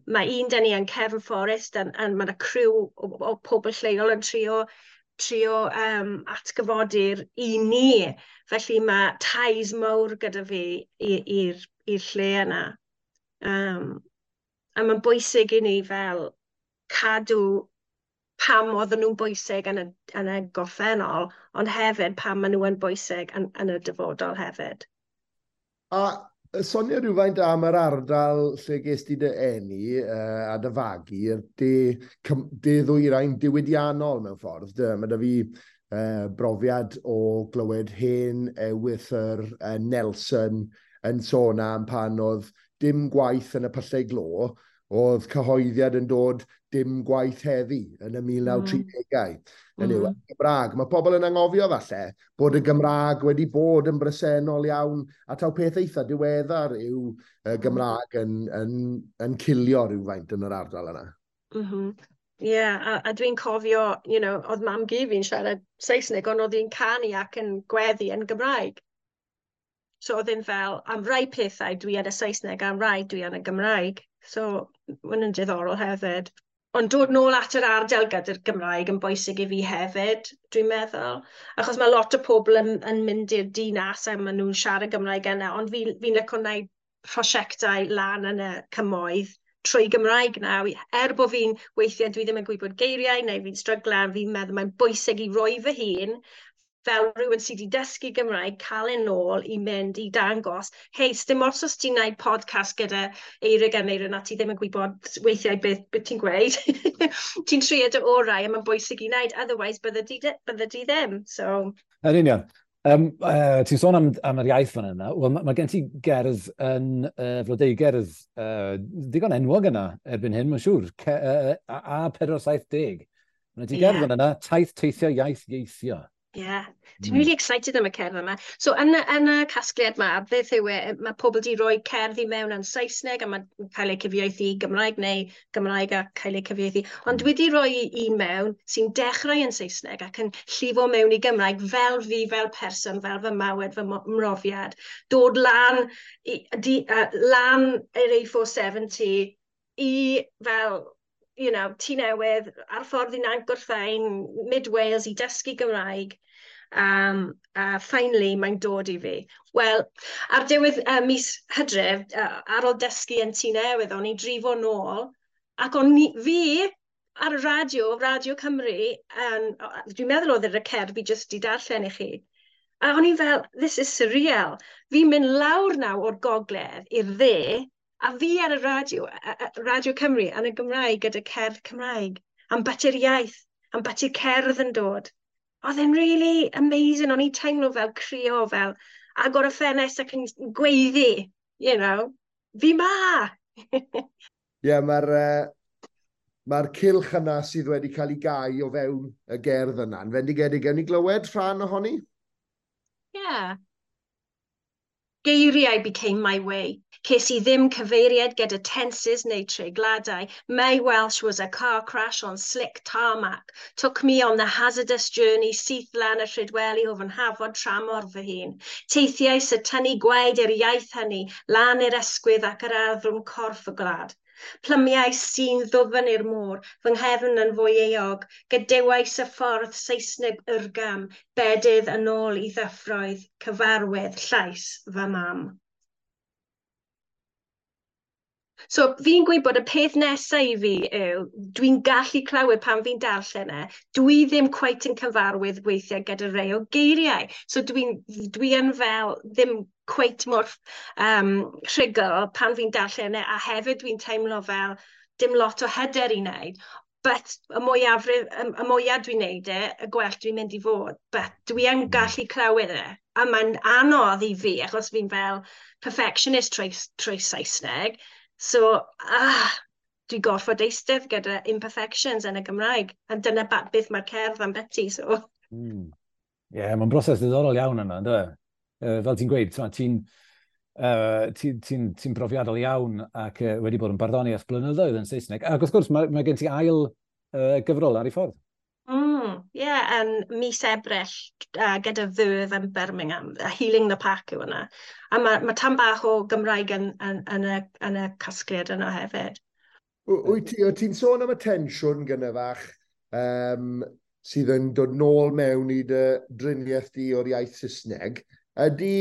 mae un dyn ni yn Cefn Fforest, a mae yna criw o pobl lleol yn trio atgyfodi'r i ni. Felly mae ties mawr gyda fi i'r lle yna. A mae'n bwysig i ni fel cadw pam oedden nhw'n bwysig yn y gorffennol, ond hefyd pam maen nhw yn bwysig yn y dyfodol hefyd. A sonio rhywfaint am yr ardal lle ges di dy eni a dy fagu, yr de ddwyrain diwydiannol mewn ffordd. Mae da fi brofiad o glywed hen ewythr Nelson yn sôn am pan oedd dim gwaith yn y pyllau glo, oedd cyhoeddiad yn dod dim gwaith heddi yn y 1930au. Yn yw, Gymraeg. Mae pobl yn anghofio falle bod y Gymraeg wedi bod yn bresennol iawn, a taw peth eitha diweddar yw y Gymraeg yn cilio rhywfaint yn yr ardal yna. Yeah, a dwi'n cofio, oedd mam-gu fi'n siarad Saesneg, ond oedd hi'n canu ac yn gweddi yn Gymraeg. So oedd hi'n fel, am rai pethau dwi yn y Saesneg, am rai dwi yn y Gymraeg. So, mae'n yn diddorol hefyd. Ond dod nôl at yr ardal gyda'r Gymraeg yn bwysig i fi hefyd, dwi'n meddwl. Achos mae lot o pobl yn mynd i'r dinas a maen nhw'n siarad Gymraeg yna, ond fi'n licio gwneud prosiectau lan yn y cymoedd trwy Gymraeg nawr. Er bod fi'n weithiau dwi ddim yn gwybod geiriau neu fi'n stryglan, fi'n meddwl mae'n bwysig i roi fy hun fel rhywun sydd wedi dysgu Gymraeg, cael e nôl i mynd i dangos, hei, sdim ots os ti'n gwneud podcast gyda Eirig a Meirin a ti ddim yn gwybod weithiau beth ti'n gweud. Ti'n trio dy orau a mae'n bwysig i wneud, otherwise bydde di ddim. So. Yn union. Ti'n sôn am yr iaith fan yna. Wel, mae gen ti gerdd yn flodeugerdd digon enwog yna erbyn hyn, mae'n siŵr, A470. Mae ti gerdd fan yna, taith teithio iaith ieithio. Yeah, dwi'n really excited am y cerdd yma. So, yn y casgliad yma, beth yw e, mae pobl di roi cerdd i mewn yn Saesneg a mae'n cael ei cyfieithu i Gymraeg neu Gymraeg a cael ei cyfieithu. Ond dwi wedi rhoi un mewn sy'n dechrau yn Saesneg ac yn llifo mewn i Gymraeg fel fi, fel person, fel fy mywyd, fy mrofiad. Dod lan, lan i'r A470 i fel Tŷ Newydd, ar ffordd i Nant Gwrtheyrn, Mid Wales i dysgu Gymraeg. A finally, mae'n dod i fi. Wel, ar diwedd mis Hydref, ar ôl dysgu yn Tŷ Newydd, o'n i drifo nôl, ac o'n i, fi ar y radio, Radio Cymru, dwi'n meddwl oedd yr cerdd fi jyst di darllen i chi. A o'n i fel, this is surreal. Fi'n mynd lawr nawr o'r gogledd i'r dde, a fi ar y radio, Radio Cymru, yn y Gymraeg gyda cerdd Cymraeg, am bati'r iaith, am bati'r cerdd yn dod. Oedd e'n really amazing, o'n i'n teimlo fel crio, fel agor y ffenest ac yn gweiddi, fi ma! Ie, yeah, mae'r cylch yna sydd wedi cael ei gau o fewn y gerdd yna. Yn fendigedig, gewn ni glywed rhan ohoni? Yeah. Geiriau became my way. Ces i ddim cyfeiriad gyda tenses neu treigladau. My Welsh was a car crash on slick tarmac. Took me on the hazardous journey syth lan y Rhydweli o fy nhafod tramor fy hun. Teithiais y tynnu gwaed i'r iaith hynny, lan i'r ysgwydd ac yr arddrwm corff y gwlad. Plymiais sy'n ddwfn i'r môr, fy nghefn yn fwy euog, gadewais y ffordd Saesneg yrgam, bedydd yn ôl i ddyffroedd, cyfarwydd llais fy mam. So fi'n gwybod y peth nesaf i fi yw, dwi'n gallu clywed pan fi'n darllen e, dwi ddim cweit yn cyfarwydd weithiau gyda rhai o geiriau. So dwi yn fel ddim cweit mor rhugl pan fi'n darllen e, a hefyd dwi'n teimlo fel dim lot o hyder i wneud. But y mwyafrif, y mwyaf dwi'n wneud e, y gwell dwi'n mynd i fod. But dwi yn gallu clywed e. A mae'n anodd i fi, achos fi'n fel perfectionist trwy Saesneg. So, dwi'n gorfod eistedd gyda imperfections yn y Gymraeg. A dyna beth mae'r cerdd am beti, so. Ie, mae'n broses ddiddorol iawn yna, ynddo? Fel ti'n gweud, ti brofiadol iawn ac wedi bod yn barddoni ers blynyddoedd yn Saesneg. Ac wrth gwrs, mae gen ti ail gyfrol ar ei ffordd. Ie, yn mis Ebrill gyda Verve yn Birmingham, Healing the Pack yw hwnna. A mae tam bach o Gymraeg yn y casgliad yna hefyd. Wyt ti'n sôn am y tensiwn gynne fach sydd yn dod nôl mewn i dy driniaeth di o'r iaith Saesneg. Ydy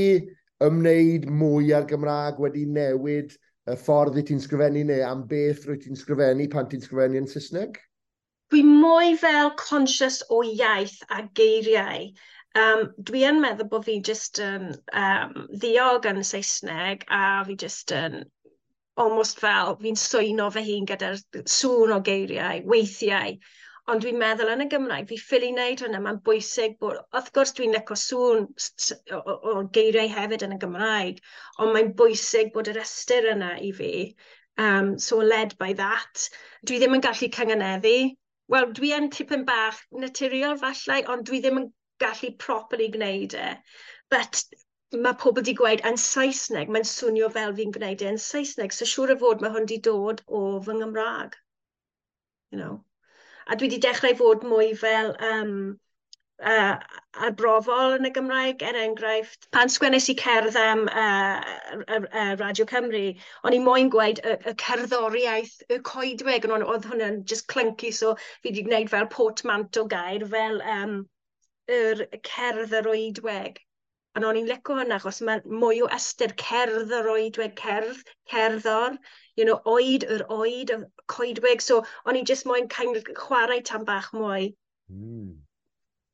ymwneud mwy â'r Gymraeg wedi newid y ffordd i ti'n sgrifennu neu am beth rwy ti'n sgrifennu pan ti'n sgrifennu yn Saesneg? Dwi mwy fel conscious o iaith a geiriau. Dwi yn meddwl bod fi jyst yn ddiog yn Saesneg a fi jyst yn almost fel fi'n swyno fy hun gyda'r sŵn o geiriau, weithiau. Ond dwi'n meddwl yn y Gymraeg, fi ffili wneud hwnna, mae'n bwysig bod, wrth gwrs dwi'n licio sŵn o geiriau hefyd yn y Gymraeg, ond mae'n bwysig bod yr ystyr yna i fi. So led by that. Dwi ddim yn gallu cynganeddu. Wel, dwi yn tipyn bach naturiol falle, ond dwi ddim yn gallu properly gwneud e. But mae pobl wedi gweud yn Saesneg, mae'n swnio fel fi'n gwneud e yn Saesneg, so siŵr o fod mae hwn wedi dod o fy Nghymraeg. You know. A dwi wedi dechrau fod mwy fel arbrofol yn y Gymraeg, er enghraifft. Pan sgwennes i cerdd am Radio Cymru, o'n i moyn gweud y cerddoriaeth, y coedwig, ond oedd hwnna'n just clunky, so fi wedi gwneud fel portmanteau gair, fel yr cerdd yr oedweg. A o'n i'n licio hwnna, achos mae mwy o ystyr cerdd yr oedweg, cerdd, cerddor, oed, yr oed, y coedwig. So o'n i'n just moyn kind of chwarae tam bach mwy.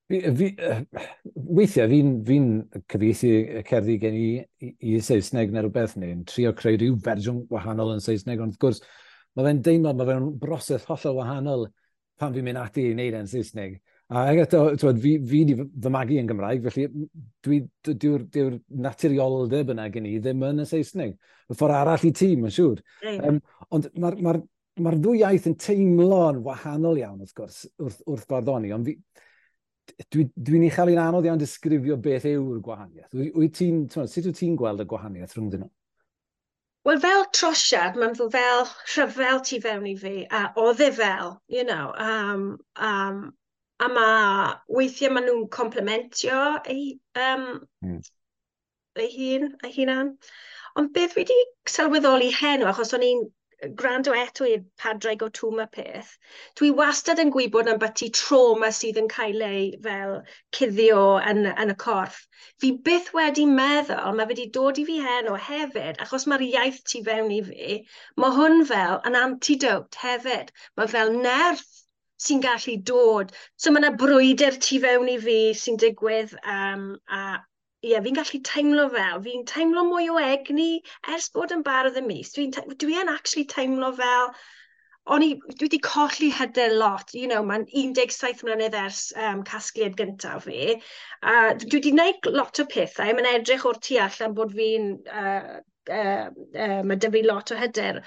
Weithiau, fi'n cyfieithu y cerddi gen i Saesneg neu rhywbeth, neu'n trio creu rhyw fersiwn wahanol yn Saesneg, ond wrth gwrs, mae fe'n deimlo, mae fe'n broses hollol wahanol pan fi'n mynd ati i wneud e'n Saesneg. A eto, t'wod, fi di fy magu yn Gymraeg, felly dyw'r naturioldeb yna gen i ddim yn y Saesneg. Y ffordd arall i ti, mae'n siŵr. Ond mae'r ddwy iaith yn teimlo'n wahanol iawn, wrth gwrs, wrth barddoni, ond dwi'n ei chael hi'n anodd iawn disgrifio beth yw'r gwahaniaeth. Sut wyt ti'n gweld y gwahaniaeth rhwngddyn nhw? Wel, fel trosiad, mae'n fel rhyfel tu fewn i fi, a oedd e fel, a mae weithiau maen nhw'n complementio ei hun, ei hunan. Ond beth fi wedi sylweddoli heno, achos o'n i'n gwrando eto i'r Padraig o Twm y peth, dwi wastad yn gwybod am byti trauma sydd yn cael ei fel cuddio yn y corff. Fi byth wedi meddwl, mae wedi dod i fi heno hefyd, achos mae'r iaith tu fewn i fi, mae hwn fel an antidote hefyd. Mae fel nerth sy'n gallu dod. So mae yna brwydr tu fewn i fi sy'n digwydd, a ie, fi'n gallu teimlo fel, fi'n teimlo mwy o egni ers bod yn bardd y mis. Dwi yn actually teimlo fel, dwi wedi colli hyder lot, mae'n 17 mlynedd ers casgliad gyntaf fi. A dwi wedi gwneud lot o pethau, mae'n edrych o'r tu allan bod mae 'da fi lot o hyder.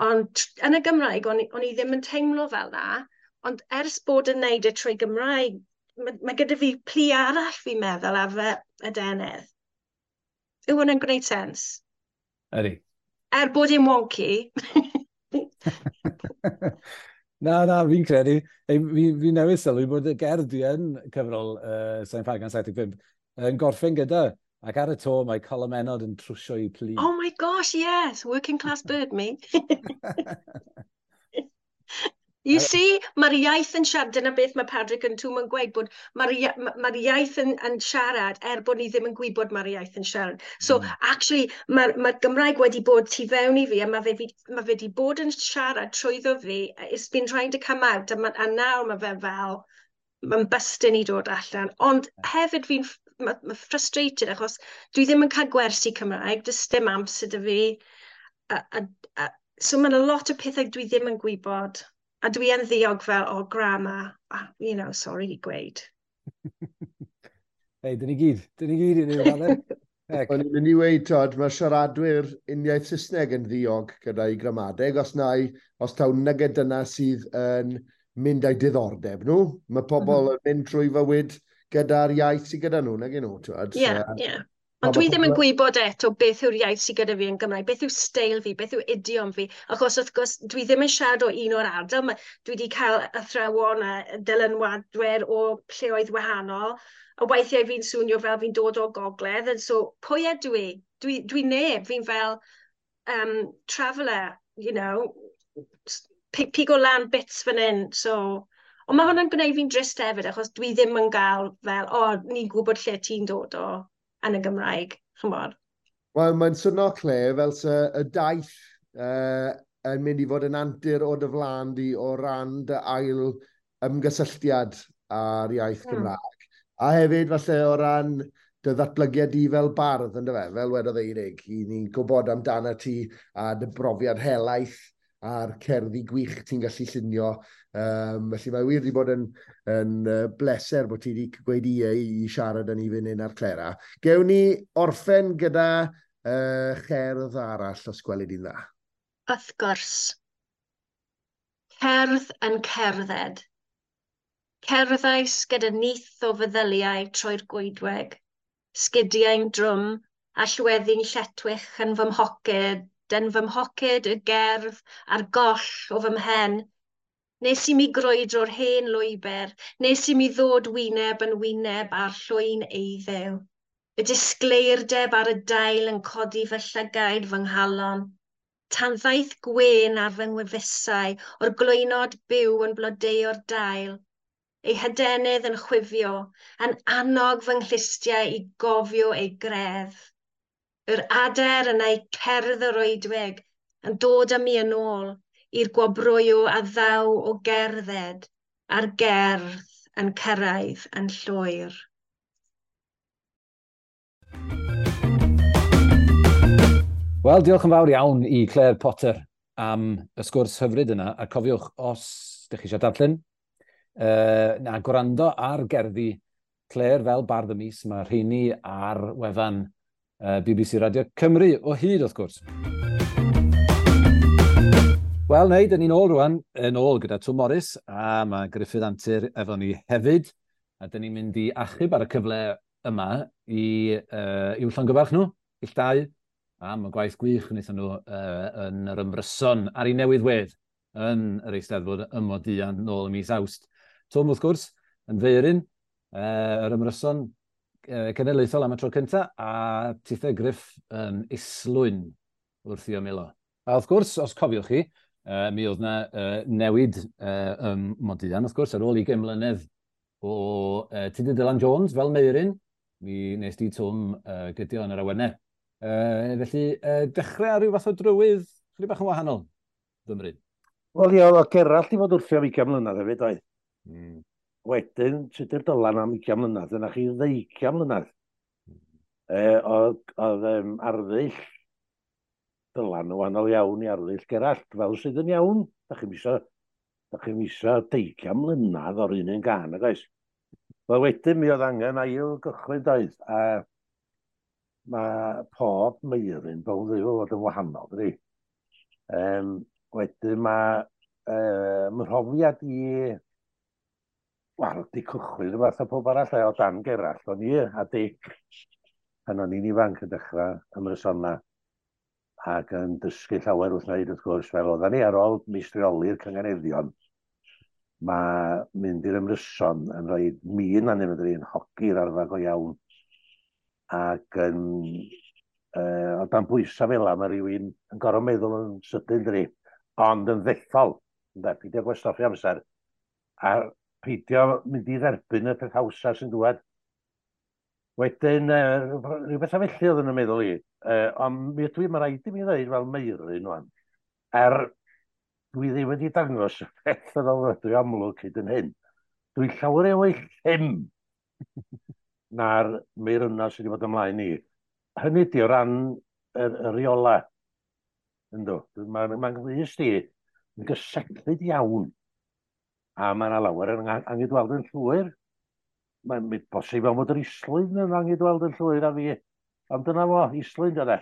Ond yn y Gymraeg, o'n i ddim yn teimlo fel na. Ond ers bod yn neud e trwy Gymraeg, mae gyda fi plu arall fi'n meddwl ar fy adenydd. Yw hwnna'n gwneud sens? Ydy. Er bod e'n wonky. Na, fi'n credu. Ei, fi newydd sylwi bod y gerdd dwi yn cyfrol Sain Ffagan 75 yn gorffen gyda. Ac ar y to mae colomennod yn trwsio i plu. Oh my gosh, yes. Working class bird, me. You see, mae'r iaith yn siarad, dyna beth mae Padraig yn Twm yn gweud, bod mae'r iaith yn siarad, er bod ni ddim yn gwybod mae'r iaith yn siarad. So, actually, mae'r Gymraeg wedi bod tu fewn i fi, a mae fe wedi bod yn siarad trwyddo fi, it's been trying to come out, a nawr mae fe fel, mae'n bystyn i dod allan. Ond hefyd fi'n ma frustrated, achos dwi ddim yn cael gwersi Cymraeg, does dim amser 'da fi. So mae'n a lot o pethau dwi ddim yn gwybod. A dwi yn ddiog fel, oh, grammar, sorry i gweud. Hei, dyn ni gyd i ni, Falle. O'n i'n mynd i weud, Todd, mae siaradwyr uniaith Saesneg yn ddiog gyda'i gramadeg, os taw nyged dyna sydd yn mynd â'i diddordeb nhw. Mae pobl yn mynd trwy fywyd gyda'r iaith sydd gyda nhw, nag nhw, twod. Ie, ie. Ond dwi ddim yn gwybod eto beth yw'r iaith sydd gyda fi yn Gymraeg, beth yw steil fi, beth yw idiom fi, achos wrth gwrs dwi ddim yn siarad o un o'r ardal, dwi wedi cael athrawon a dylanwadwyr o lleoedd wahanol, a weithiau fi'n swnio fel fi'n dod o gogledd, and so pwy ydw i? Dwi neb, fi'n fel traveller, pigo lan bits fan hyn, so... Ond mae hwnna'n gwneud fi'n drist hefyd, achos dwi ddim yn gael fel, o, ni'n gwybod lle ti'n dod o yn y Gymraeg, ch'mod. Wel, mae'n swnio, Claire, fel se y daith yn mynd i fod yn antur o dy flaen di o ran dy ail ymgysylltiad â'r iaith Gymraeg. A hefyd, falle, o ran dy ddatblygiad di fel bardd, yndyfe, fel wedodd Eirig, i ni'n gwybod amdano ti a dy brofiad helaeth a'r cerddi gwych ti'n gallu llunio. Felly mae wir wedi bod yn bleser bod ti wedi gweud ie i siarad â ni fan hyn ar Clera. Gewn ni orffen gyda cherdd arall, os gweli di'n dda. Wrth gwrs. Cerdd yn cerdded. Cerddais gyda nyth o feddyliau trwy'r goedwig, sgidiau'n drwm a llweddi'n lletwych yn fy mhoced, yn fy mhoced y gerdd a'r goll o fy mhen. Nes i mi grwydro'r hen lwybr, nes i mi ddod wyneb yn wyneb â'r llwyn eiddew. Y disgleirdeb ar y dail yn codi fy llygaid fy nghalon. Tan ddaeth gwên ar fy ngwefusau o'r glwynod byw yn blodeuo'r dail. Ei hadenydd yn chwifio, yn annog fy nghlustiau i gofio ei greddf. Yr ader yn ei cerdd yr oedwig yn dod â mi yn ôl i'r gwobrwyo a ddaw o gerdded a'r gerdd yn cyrraedd yn llwyr. Wel, diolch yn fawr iawn i Claire Potter am y sgwrs hyfryd yna. A cofiwch, os ydych chi eisiau darllen, na gwrando ar gerddi Claire fel Bardd y Mis, mae rheini ar wefan BBC Radio Cymru o hyd, wrth gwrs. Wel, neu, dyn ni'n ôl rwan, yn ôl gyda Twm Morys, a mae Gruffudd Antur efo ni hefyd, a dyn ni'n mynd i achub ar y cyfle yma i i'w llongyfarch nhw, ill dau, am y gwaith gwych wnaethon nhw yn yr ymryson ar ei newydd wedd yn yr Eisteddfod ym Modian nôl ym mis Awst. Twm, wrth gwrs, yn feuryn yr ymryson cenedlaethol am y tro cyntaf, a Tithe Gruff yn islwyn wrth i ymylo. A wrth gwrs, os cofiwch chi, mi oedd yna newid ym Modian, wrth gwrs, ar ôl 20 mlynedd o Tudur Dylan Jones fel Meuryn, mi nes di Twm gydio yn yr awennau. Felly, dechrau ar ryw fath o drywydd, chydig bach yn wahanol, fymryn. Wel, ie, oedd Gerallt i fod wrthi am 20 mlynedd hefyd, oedd. Wedyn, Tudur Dylan am 20 mlynedd, yna chi 20 mlynedd. Oedd arddull Dylan yn wahanol iawn i arddull Gerallt, fel sydd yn iawn. Da chi'm isio 20 mlynedd o'r un gân, nag oes? Wel, wedyn mi oedd angen ail gychwyn, doedd, a mae pob meuryn bownd i fod yn wahanol, dydi? Wedyn mae mhrofiad i, wel, di cychwyn rhywbeth a pob arall o dan Gerallt, o'n i a Dic, pan o'n i'n ifanc yn dechrau ymrysona ac yn dysgu llawer wrth wneud, wrth gwrs, fel oedden ni ar ôl meistrioli'r cynganeddion, mae mynd i'r ymryson yn rhoi min arnyn nhw, yn hogi'r arfer go iawn, ac yn o dan bwysau fel yna, mae rhywun yn gorfod meddwl yn sydyn, dydi, ond yn ddethol, ynde, peidio gwastraffu amser, a peidio mynd i dderbyn y peth hawsa sy'n dŵad. Wedyn, rhywbeth a felly oedd yn y meddwl i, ond mi ydw i, mae rhaid i mi ddweud fel Meuryn wan, dwi ddim wedi dangos y peth yn ofnadwy amlwg hyd yn hyn. Dwi'n llawer iawn mwy llym na'r meirynau sydd wedi bod ymlaen i. Hynny ydi o ran y rheola. Yndw. Mae'n glust i yn gyseglyd iawn. A mae yna lawer yn angydweld yn llwyr. Mae'n bosib fel bod yr islwyn yn angydweld yn llwyr a fi. Ond dyna fo, islwyn dyna.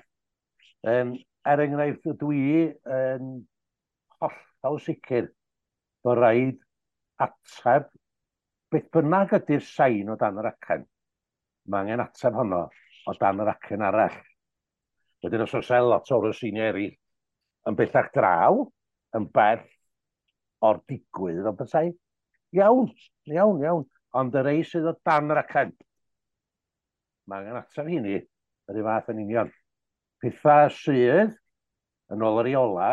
Er enghraifft, dwi yn hollol sicr bod rhaid ateb beth bynnag ydy'r sain o dan yr acen. Mae angen ateb honno o dan yr acen arall. Wedyn os oes lot o'r seiniau eraill yn bellach draw, yn bell o'r digwydd o bethau, iawn, iawn, iawn. Ond y rei sydd o dan yr acen, mae angen ateb hynny yr un fath yn union. Pethau sydd, yn ôl yr reola,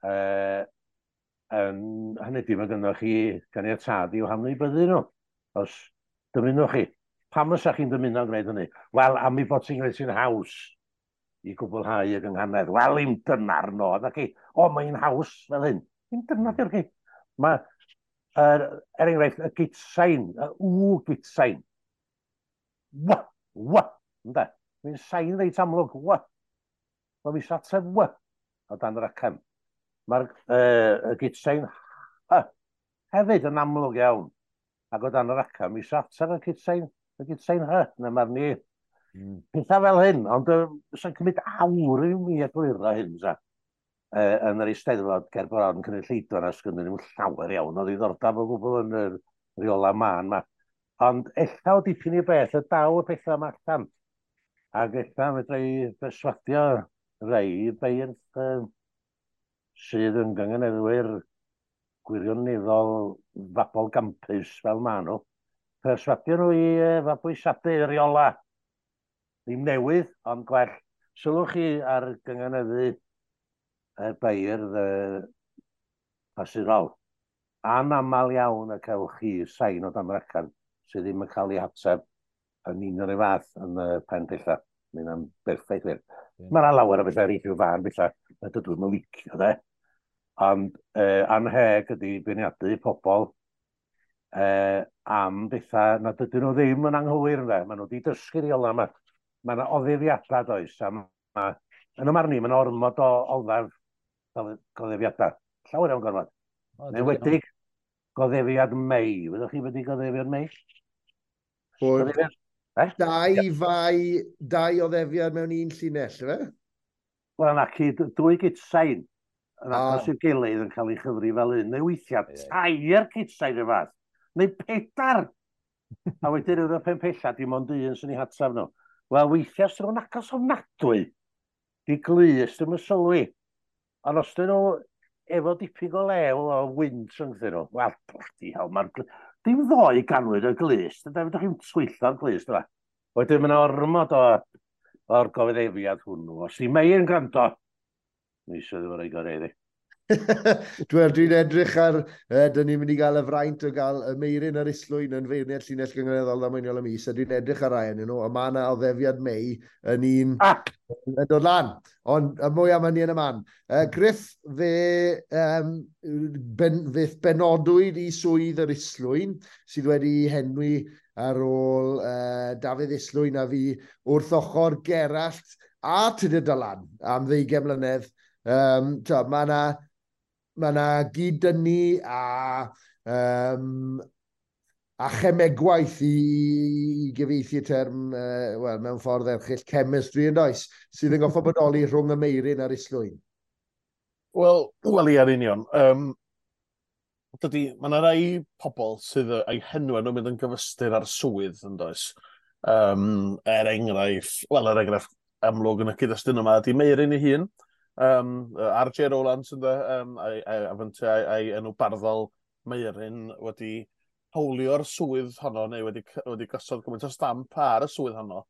yn hynny ydy, mae gynnoch chi ganiatâd i'w hamnewidbyddu nhw, os dymunwch chi. Pam fysa chi'n dymuno gwneud hynny? Wel, am ei bod ti'n gwneud sy'n haws i gwblhau y gynghanedd. Wel, im dyna'r nod, ac i, o, mae'n haws fel hyn. Im dyna di'r chi. Mae, er enghraifft, y gitsain, y w gitsain. W, w, ynde? Mae'n sain reit amlwg, w. Mae mi ateb w o dan yr acen. Mae'r y gitsain H hefyd yn amlwg iawn. Ac o dan yr aca, mi ateb y gitsain, y gitsain H, na mae'r ni. Pethau fel hyn, ond sy'n cymryd awr i mi egluro hyn, sa. Yn yr Eisteddfod ger bron cynulleidfa na sgynnyn nhw llawer iawn o ddiddordeb o gwbl yn yr rheola mân ma. Ond ella o dipyn i beth y daw y pethau yma allan. Ac ella fedra i berswadio rei beirdd sydd yn gynganeddwyr gwirioneddol fabol gampus fel maen nhw. Perswadio nhw i fabwysiadu rheola. Ddim newydd, ond gwell. Sylwch chi ar gynganeddu y beirdd clasurol. Anaml iawn y cewch chi sain o dan racan sydd ddim yn cael ei hateb yn un o'r fath yn y pen pella. Mae hynna'n berffaith wir. Yeah. Mae yna lawer o bethau eraill i'w fan bethau na dydw i'm yn licio, de. Ond anheg ydy beirniadu pobl am bethau nad ydyn nhw ddim yn anghywir, ynde. Maen nhw wedi dysgu rheola yma. Mae yna oddefiadau, does, a ma, yn y marn i, mae yna ormod o oddef goddefiadau. Llawer iawn gormod. Oh, Yn enwedig goddefiad Mei. Wyddwch chi beth ydi goddefiad Mei? Bod dau fai, dau oddefiad mewn un llinell, ife? Wel, na, cyd, dwy gitsain yn agos i'w gilydd yn cael ei chyfri fel un, neu weithiau tair gitsain y fath, neu pedair. A wedyn yn y pen pella, dim ond un sy'n ei hatab nhw. Wel, weithiau sy'n nhw'n agos ofnadwy, di glust ddim yn sylwi. Ond os dyn nhw efo dipyn go lew o wynt rhyngthyn nhw, wel, bloody hell, mae'r... Dim ddoe ganwyd y glust, ynde, fedrwch chi'm twyllo'r glust yma. Wedyn mae yna ormod o'r gofyddefiad hwnnw. Os di Mei yn gwrando, mi eisiau ddim yn rhoi gorau iddi. Dwi'n edrych ar, dyn ni'n mynd i gael y fraint o gael y Meiryn a'r Islwyn yn feirniad llinell gynganeddol ddamweiniol y mis, a dwi'n edrych ar rai ohonyn nhw, a mae yna oddefiad Mei yn un yn dod lan. Ond y mwy am hynny yn y man. Griff, fe, fe benodwyd i swydd yr Islwyn, sydd wedi henwi ar ôl Dafydd Islwyn a fi wrth ochr Gerallt a Tudur Dylan am 20 mlynedd. Mae yna gyd-dynnu a chemegwaith i gyfieithu y term, wel, mewn ffordd erchyll, chemistry yn does, sydd yn goffo bodoli rhwng y Meiryn a'r Islwyn. Wel, ie, yn union. Dydy, mae yna rai pobl sydd eu henwau nhw'n mynd yn gyfystyr ar swydd, yn does. Er enghraifft, wel, er enghraifft amlwg yn y cyd-destun yma, ydy Meiryn ei hun. R.J. Rowlands, ynde, a'i enw barddol Meiryn wedi hawlio'r swydd honno, neu wedi gosod gymaint o stamp ar y swydd honno,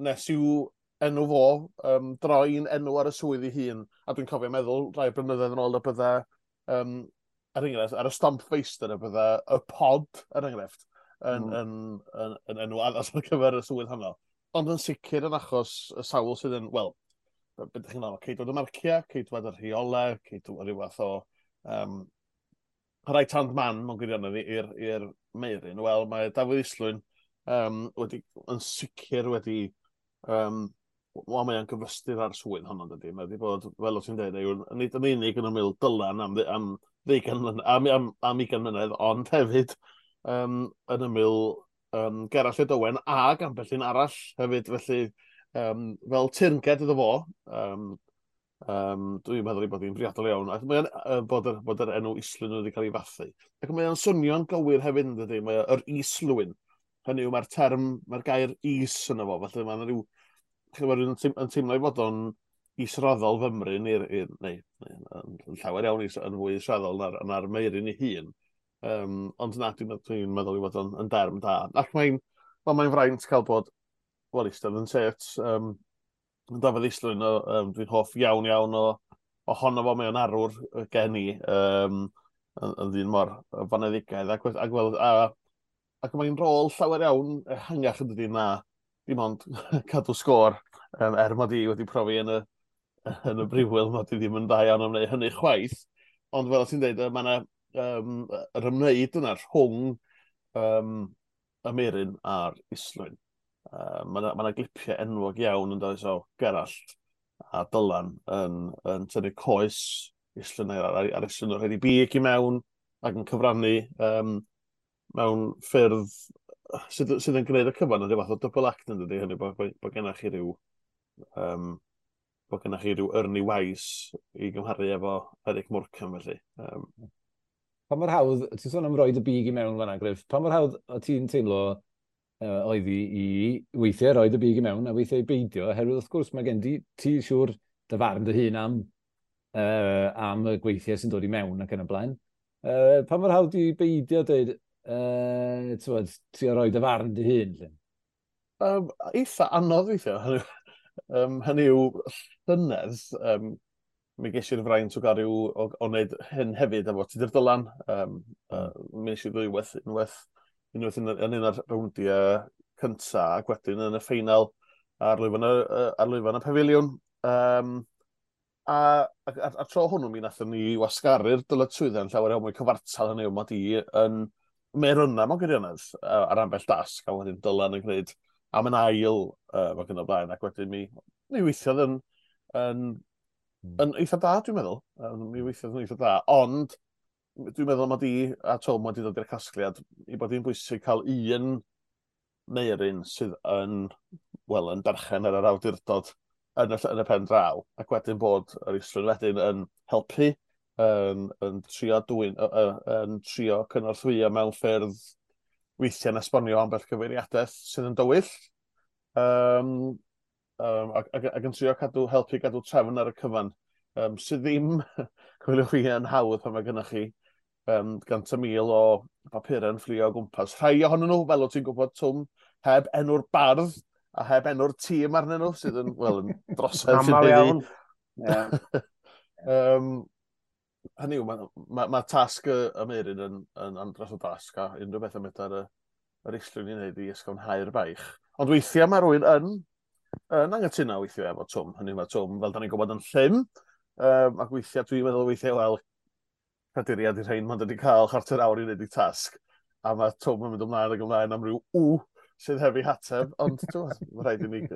nes i'w enw fo droi'n enw ar y swydd ei hun. A dwi'n cofio meddwl rai blynyddoedd yn ôl y bydde, er enghraifft, ar y stamp feistr y bydde y pod, er enghraifft, yn enw addas ar gyfer y swydd honno. Ond yn sicr yn achos y sawl sydd yn, wel, be ydych chi'n meddwl, ceidwad y marciau, ceidwad y rheolau, ceidwad rhyw fath o right hand man mewn gwirionedd i'r Meiryn. Wel, mae Dafydd Islwyn wedi, yn sicr wedi, wel, mae o'n gyfystyr ar swydd honno, dydy. Mae wedi bod, fel o ti'n dweud, yw, nid yn unig yn ymyl Dylan am 20 mlynedd, am 20 mlynedd, ond hefyd yn ymyl Gerallt Lloyd Owen ag ambell un arall hefyd, felly fel teyrnged iddo fo, dwi'n meddwl ei bod hi'n briodol iawn, ac mae'n bod yr enw Islwyn wedi cael ei fathu. Ac mae o'n swnio'n gywir hefyd, yn dydy, mae yr Islwyn. Hynny yw, mae'r term, mae'r gair is yno fo, felly mae'n rhyw, chi'n gwbod, rhywun yn teimlo ei fod o'n israddol fymryn, neu yn llawer iawn yn fwy israddol na'r Meiryn ei hun. Ond na, dwi'n meddwl ei fod o'n yn derm da. Ac mae'n fraint cael bod, wel, eistedd yn set, Dafydd Islwyn, dwi'n hoff iawn iawn ohono fo, mae o'n arwr gen i, yn ddyn mor foneddigaidd, ac mae'n rôl llawer iawn ehangach yn dydi na dim ond cadw sgôr, er mod i wedi profi yn y brifwyl, mod i ddim yn dda iawn am wneud hynny chwaith, ond fel ti'n dweud, mae yna yr ymwneud yna rhwng y Meiryn a'r Islwyn. Mae yna glipiau enwog iawn yn dod o Gerallt a Dylan yn tynnu coes Islwyn a'r Islwyn o'r rhaid i big i mewn ac yn cyfrannu mewn ffyrdd sydd yn gwneud y cyfan yn rhyw fath o double act yn dydy, hynny bod gennych chi rhyw bod gennych chi rhyw Ernie Wise i gymharu efo Eric Morecambe felly. Pa mor hawdd, ti'n sôn am roed y big i mewn fan'na, Griff, pa mor hawdd o ti'n teimlo oedd i weithiau roed y big i mewn a weithiau i beidio, oherwydd wrth gwrs mae gen ti siŵr dy farn dy hun am y gweithiau sy'n dod i mewn ac yn y blaen. Pa mor hawdd i beidio dweud, trio roi dy farn dy hun? Eitha anodd weithiau. Hynny yw, llynedd, mi ges i'r fraint o gael rhyw, o wneud hyn hefyd efo Tudur Dylan. Mi nes i ddwywaith, unwaith yn un o'r rowndiau cynta, ac wedyn yn y ffeinal ar lwyfan y pafiliwn. A tro hwnnw mi nathon ni wasgaru'r dyletswyddau yn llawer iawn mwy cyfartal, hynny yw mod i yn meirynna mewn gwirionedd ar ambell dasg, a wedyn Dylan yn gwneud am yn ail ac yn y blaen, ac wedyn mi weithiodd yn eitha da, dwi'n meddwl. Mi weithiodd yn eitha da, ond dwi'n meddwl mod i a Tom wedi dod i'r casgliad i bod hi'n bwysig cael un Meirin sydd yn, wel, yn berchen ar yr awdurdod yn y pen draw, ac wedyn bod yr Islwyn wedyn yn helpu, yn trio dwyn, yn trio cynorthwyo mewn ffyrdd weithiau'n esbonio ambell cyfeiriadaeth sydd yn dywyll, ac yn trio helpu gadw trefn ar y cyfan, sydd ddim, coeliwch chi, yn hawdd pan mae gennych chi 100,000 o bapurau'n fflio o gwmpas. Rhai ohonyn nhw, fel o ti'n gwybod, Twm, heb enw'r bardd a heb enw'r tîm arnyn nhw, sydd yn, wel, yn drosedd. Amal iawn. Hynny yw, mae tasg y Meirin yn andros o dasg, a unrhyw beth am ar yr Islwyn i wneud i ysgafnhau'r baich. Ond weithiau mae rhywun yn anghytuno weithiau efo Twm. Hynny yw, mae Twm, fel da ni'n gwybod, yn llym, ac weithiau dwi'n meddwl weithiau, wel, caduriad i'r rhain, mae'n wedi cael chwarter awr i wneud ei tasg, a mae Twm yn mynd ymlaen ac ymlaen am ryw w sydd heb ei hateb, ond mae rhaid i ni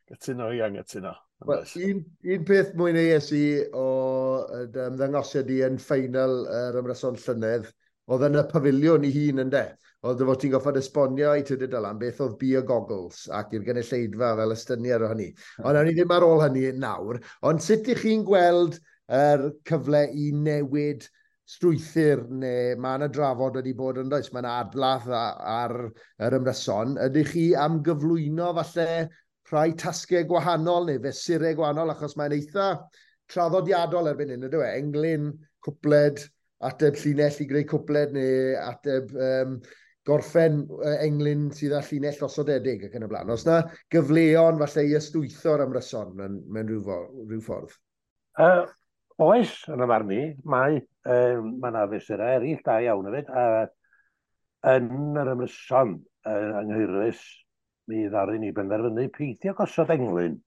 gytuno i anghytuno. Well, un peth mwy neu i o ymddangosiad i yn ffeinal yr ymryson llynedd, oedd yn y pafiliwn i hun ynde. Oedd dy fod ti'n goffod esbonio i Tudur Dylan beth oedd beer goggles ac i'r gynulleidfa fel ystyniad o hynny. Ond awn ni ddim ar ôl hynny nawr. Ond sut ych chi'n gweld yr cyfle i newid strwythur, neu mae yna drafod wedi bod yn does, mae yna adladd ar yr ymryson. Ydych chi am gyflwyno falle rhai tasgau gwahanol neu fesurau gwahanol, achos mae'n eitha traddodiadol erbyn hyn, ydw e? Englyn, cwpled, ateb llinell i greu cwpled, neu ateb gorffen englyn sydd â llinell osodedig ac yn y blaen. Os na gyfleon falle i ystwytho'r ymryson mewn rhyw ffordd? Oes, yn y marn i, mae yna fesurau eraill da iawn hefyd. Yn yr ymryson yng Nghaerwys, mi ddaru ni benderfynu peidio gosod englyn.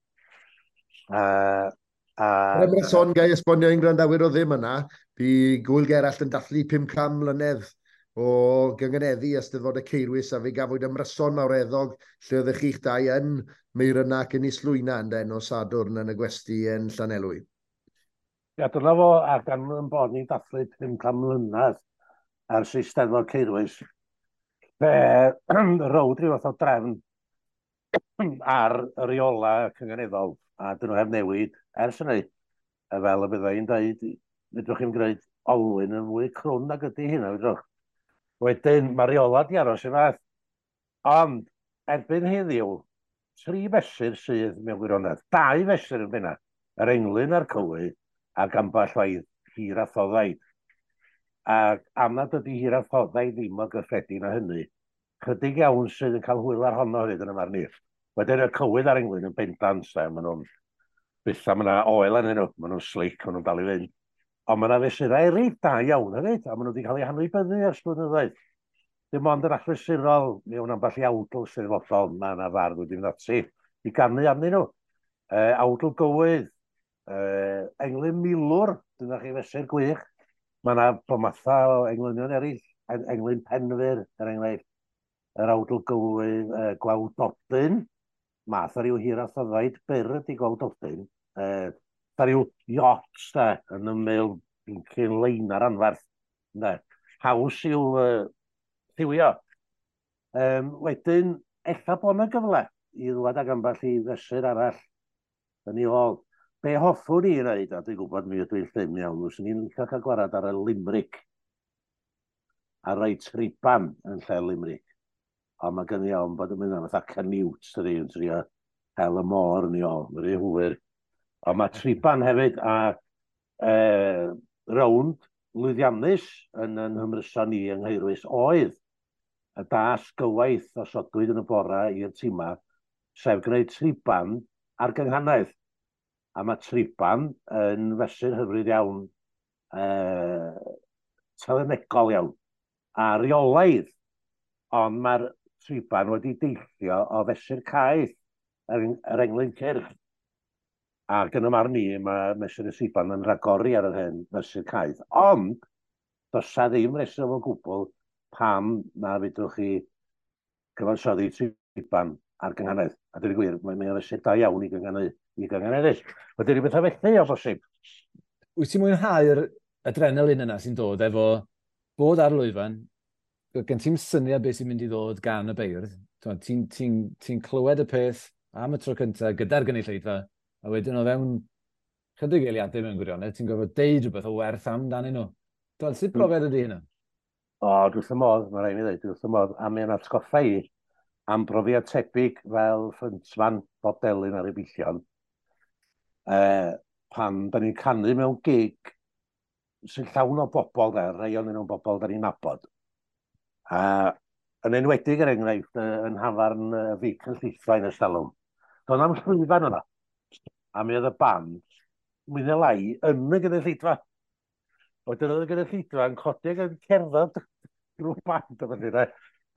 Yr ymryson, gai esbonio i'n gwrandawyr o ddim yna, bu Gwyl Gerallt yn dathlu 500 mlynedd o gyngeneddu Eisteddfod y Ceirwys, a fe gafwyd ymryson mawreddog lle oeddech chi'ch dau yn Meirynna ac yn Islwyna yn nos Sadwrn yn y gwesty yn Llanelwy. Ia, dyna fo, ac am yn bod ni'n dathlu 500 mlynedd ers Eisteddfod Ceirwys, fe rowd rhyw fath o drefn ar y reola cynganeddol, a dyn nhw heb newid ers hynny. Fel y bydda i'n dweud, fedrwch chi'm gwneud olwyn yn fwy crwn nag ydy hynna, fedrwch. Wedyn, mae reola di aros i fath. Ond, erbyn heddiw, 3 fesur sydd mewn gwirionedd, 2 fesur yn benna, yr englyn a'r cywydd, ac ambell waith hir a thoddaid. Ac am nad ydy hir a thoddaid ddim mor gyffredin â hynny, chydig iawn sydd yn cael hwyl ar honno hefyd yn y marn i. Wedyn y cywydd a'r englyn yn bendant, maen nhw'n byth am yna oel arnyn nhw, maen nhw'n slick, maen nhw'n dal i fynd. Ond mae yna fesurau eraill da iawn hefyd, a maen nhw wedi cael eu hanwybyddu ers blynyddoedd. Dim ond yn achlysurol, mewn ambell i awdl Steddfodol, mae yna fardd wedi mynd ati i ganu arnyn nhw. Awdl gywydd, englyn milwr, dyna chi fesur gwych. Mae yna bomatha o englynion eraill, englyn penfyr, er enghraifft, yr awdl gywydd, gwawdodyn, math o ryw hir a thoddaid byr ydy gwawdodyn, Fatha rhyw yacht, da, yn ymyl cyn leinar anferth. Da. Haws i'w lliwio. Wedyn, ella bod yna gyfle i ddwad ag ambell i fesur arall yn ei ôl. Be hoffwn i wneud, a dwi'n gwybod mi ydw i'n llym iawn, fyswn i'n licio cael gwarad ar y limerick, a rhoi triban yn lle limerick. Ond mae gen i ofn bod yn mynd am fatha Canute, dydi, yn trio hel y môr yn ei ôl, mae'n rhy hwyr. Ond mae triban hefyd, a rownd lwyddiannus yn ymryson ni yng Nghaerwys oedd y dasg gywaith osodwyd yn y bora i'r tîma, sef gwneud triban ar gynghanedd. A mae triban yn fesur hyfryd iawn, telynegol iawn, a reolaidd, ond mae'r triban wedi deillio o fesur caeth yr englyn cyrch. Ac yn y marn i, mae mesur y triban yn rhagori ar yr hen fesur caeth. Ond, does 'na ddim reswm o gwbl pam na fedrwch chi cyfansoddi triban ar gynghanedd. A dweud y gwir, mae'n fesur da iawn i gynghaneddu. Wedyn rhyw bethau felly o bosib. Wyt ti'n mwynhau'r adrenalin yna sy'n dod efo bod ar lwyfan, gen ti'n syniad beth sy'n mynd i ddod gan y beirdd, ti'n clywed y peth am y tro cyntaf gyda'r gynulleidfa, a wedyn o fewn chydig eiliadau mewn gwirionedd, ti'n gorfod deud rhywbeth o werth amdanyn nhw. Sut brofiad ydy hynna? O, dwi wrth y modd, mae rhaid i mi ddweud, dwi wrth y modd, a mae'n atgoffa i am brofiad tebyg fel frontman Bob Delyn ar y Billion. Pan da ni'n canu mewn gig sy'n llawn o bobl, da, rhai o'n nhw'n bobl da ni'n nabod. A yn enwedig, er enghraifft, yn hafarn Fic yn Llithfaen ers talwm. Doedd na'm llwyfan yna. A mi oedd y band, mwy neu lai, yn y gynulleidfa. Wedyn oedd y gynulleidfa yn codi ac yn cerdded drwy'r band o felly.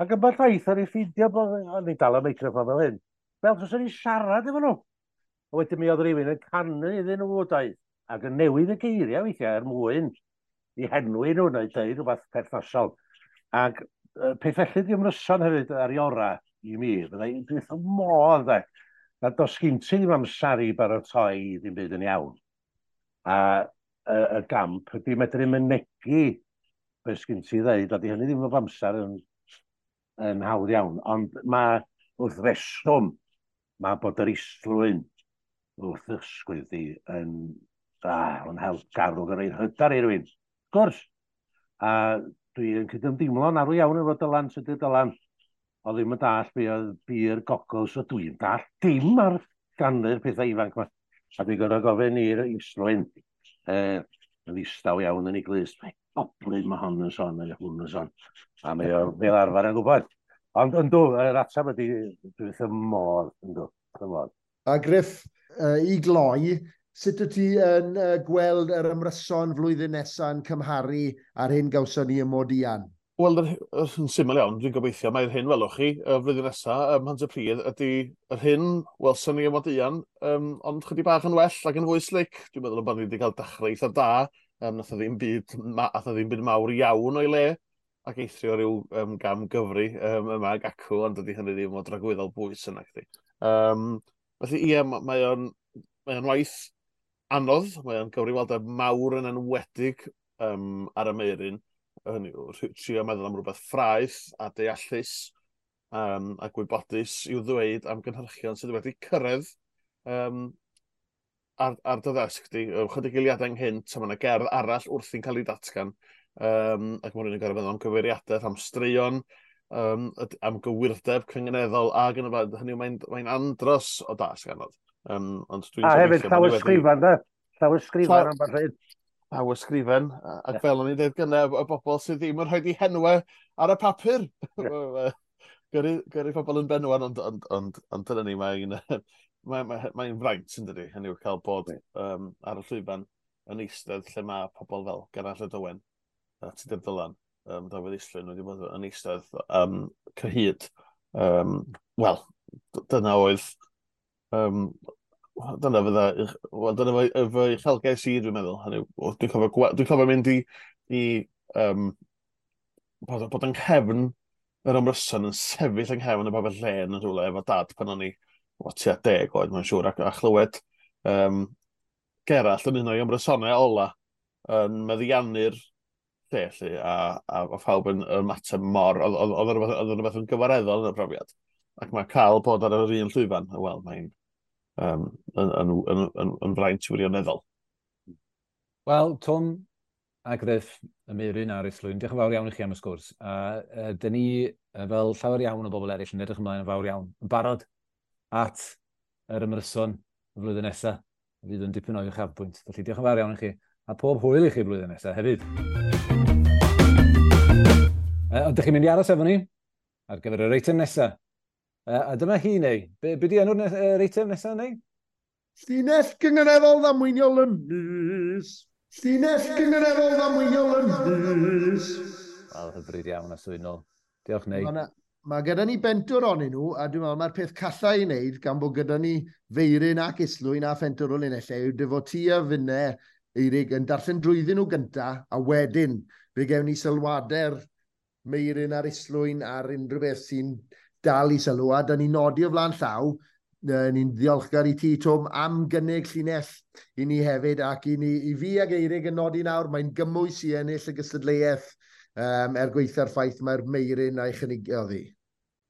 Ac ambell waith o'n i ffeindio bod o'n i dal y meicroffon fel hyn. Fel os o'n i siarad efo nhw. A wedyn mi oedd rhywun yn canu iddyn nhw, doedd. Ac yn newid y geiriau weithiau er mwyn i henwi nhw neu dweud rhywbeth perthnasol. Ac peth felly di ymryson hefyd ar ei ora i mi. Byddai dwi wrth y modd, de. Na does gen ti ddim amser i baratoi ddim byd yn iawn. A y gamp ydy medru mynegi beth sgyn ti ddeud, a di hynny ddim o amser yn hawdd iawn. Ond mae wrth reswm, mae bod yr islwyn wrth ysgwydd di yn help garw yn rhoid hyder i rywun. Wrth gwrs. A dwi'n cydymdeimlo'n arw iawn efo Dylan, Tudur Dylan. O ddim yn dall be oedd beer goggles, so dwi'n dall dim ar ganu'r pethau ifanc yma. A dwi'n gorfod gofyn i'r Islwyn, yn ddistaw iawn yn ei glust, mae goblyn mae hon yn sôn, neu hwn yn sôn. A mae o fel arfer yn gwybod. Ond yndw, yr ateb ydy, dwi wrth y modd, yndw, wrth y modd. A Griff, i gloi, sut wyt ti yn gweld yr ymryson flwyddyn nesaf yn cymharu â'r hyn gawson ni ym Modian? Wel, yn syml iawn, dwi'n gobeithio mae'r hyn welwch chi y flwyddyn nesaf ym Mhontypridd ydy yr hyn welson ni ym Modian, ond chydig bach yn well ac yn fwy slick. Dwi'n meddwl bod ni wedi cael dechrau eitha da, nath o ddim byd, nath o ddim byd mawr iawn o'i le, ac eithrio rhyw gam gyfri yma ag acw, ond dydy hynny ddim o dragwyddol bwys yna chdi. Felly ie, mae o'n waith anodd, mae o'n gyfrifoldeb mawr yn enwedig ar y Meuryn. Hynny yw, trio meddwl am rhywbeth ffraeth a deallus a gwybodus i'w ddweud am gynhyrchion sydd wedi cyrraedd ar dy ddesg di. Chydig eiliadau ynghynt, a mae yna gerdd arall wrthi'n cael ei datgan. Ac mae rhywun yn gorfod meddwl am gyfeiriadaeth, am straeon, am gywirdeb cynganeddol, ac yn y blaen. Hynny yw, mae'n andros o dasg anodd. Ond dwi'n A hefyd gobeithio bod ni wedi llawysgrifan, de? Llawysgrifan am beth hyn. Llawysgrifen, ac fel o'n i'n dweud gynne, y bobl sydd ddim yn rhoi eu henwau ar y papur. Gyrru pobl yn benwan, ond dyna ni, mae'n fraint yn dydi, hynny yw cael bod ar y llwyfan yn eistedd lle mae pobl fel Geraint Owen a Tudur Dylan, Dafydd Islwyn wedi bod yn eistedd cyhyd. Wel, dyna oedd, dyna fydda, wel, dyna fy uchelgais i, dwi'n meddwl. Hynny yw, dwi'n cofio mynd i bod yng nghefn yr ymryson yn sefyll yng nghefn y babell lên yn rhywle efo dad pan o'n i tua 10 oed, mae'n siŵr, a chlywed Gerallt yn un o'i ymrysonau ola yn meddiannu'r lle, lle a phawb yn ymateb mor, oedd rhywbeth yn gyfareddol yn y profiad. Ac mae cael bod ar yr un llwyfan, wel, mae'n yn fraint wirioneddol. Wel, Twm a Griff, y Meiryn a'r Islwyn, diolch yn fawr iawn i chi am y sgwrs. A dyn ni, fel llawer iawn o bobl eraill, yn edrych ymlaen yn fawr iawn, yn barod at yr ymryson y flwyddyn nesaf. Fydd yn dipyn o uchafbwynt. Felly diolch yn fawr iawn i chi, a pob hwyl i chi blwyddyn nesaf hefyd. Ond dych chi'n mynd i aros efo ni ar gyfer yr eitem nesaf. A dyma hi, neu. Be di enw'r eitem nesaf, neu? Llinell gynganeddol ddamweiniol y mis. Llinell gynganeddol ddamweiniol y mis. Wel, hyfryd iawn a swynol. Diolch, neu. Mae gyda ni bentwr onyn nhw, a dwi'n meddwl mae'r peth calla i wneud, gan bod gyda ni Feiryn ac Islwyn a phentwr o linellau, yw dyfod ti a finne, Eirig, yn darllen drwyddyn nhw gynta, a wedyn fe gewn ni sylwadau'r Meiryn a'r Islwyn ar unrhyw beth sy'n dal i sylw, a da ni'n nodi o flaen llaw, ni'n ddiolchgar i ti, Twm, am gynnig llinell i ni hefyd, ac i, ni, i fi ag Eirig yn nodi nawr, mae'n gymwys i ennill y gystadleuaeth er gweitha'r ffaith mae'r Meiryn a'i chynigiodd hi.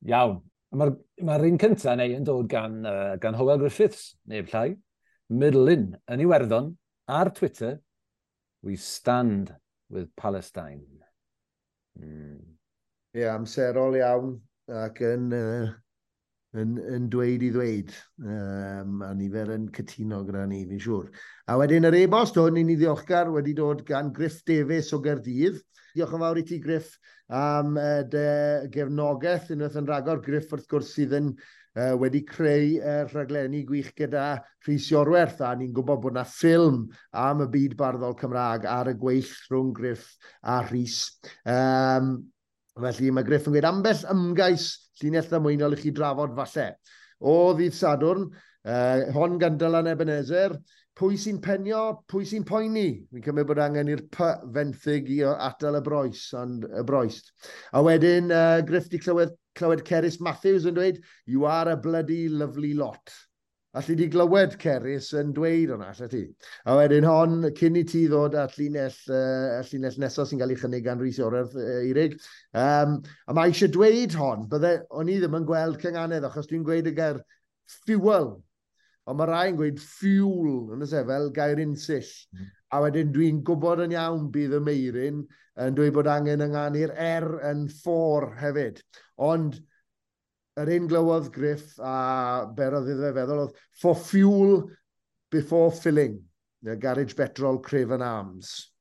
Iawn. Mae'r ma un cyntaf neu yn dod gan Hywel Griffiths, neb llai, Midlin, yn Iwerddon, ar Twitter, "We stand with Palestine." Ie, yeah, amserol iawn ac yn dweud i ddweud. A nifer yn cytuno gyda ni, fi'n siŵr. A wedyn yr e-bost hwn, i ni ddiolchgar, wedi dod gan Griff Davies o Gaerdydd. Diolch yn fawr i ti, Griff, am dy gefnogaeth unwaith yn rhagor. Griff, wrth gwrs, sydd yn wedi creu rhaglenni gwych gyda Rhys Iorwerth, a ni'n gwybod bod yna ffilm am y byd barddol Cymraeg ar y gweill rhwng Griff a Rhys. Felly mae Griff yn gweud ambell ymgais llinell ddamweiniol i chi drafod falle. O ddydd Sadwrn, hon gan Dylan Ebenezer, pwy sy'n penio, pwy sy'n poeni? Fi'n cymryd bod angen i'r P fenthyg i atal y broes, ond y broest. A wedyn, Griff di clywed Cerys Matthews yn dweud, "You are a bloody lovely lot." Alli di glywed Cerys yn dweud hwnna, alli ti? A wedyn hon, cyn i ti ddod at llinell nesaf sy'n cael ei chynnig gan Rhys Iorwerth, Eirig. A mae eisiau dweud hon, bydde, o'n i ddim yn gweld cynganedd, achos dwi'n gweud y gair fuel. Ond mae rai yn gweud fuel, yn y fel gair unsill. A wedyn dwi'n gwybod yn iawn bydd y Meiryn yn dweud bod angen ynganu'r R yn for hefyd. Ond yr un glywodd Griff a berodd iddo fe feddwl oedd "for fuel before filling". The Garage Petrol Craven Arms.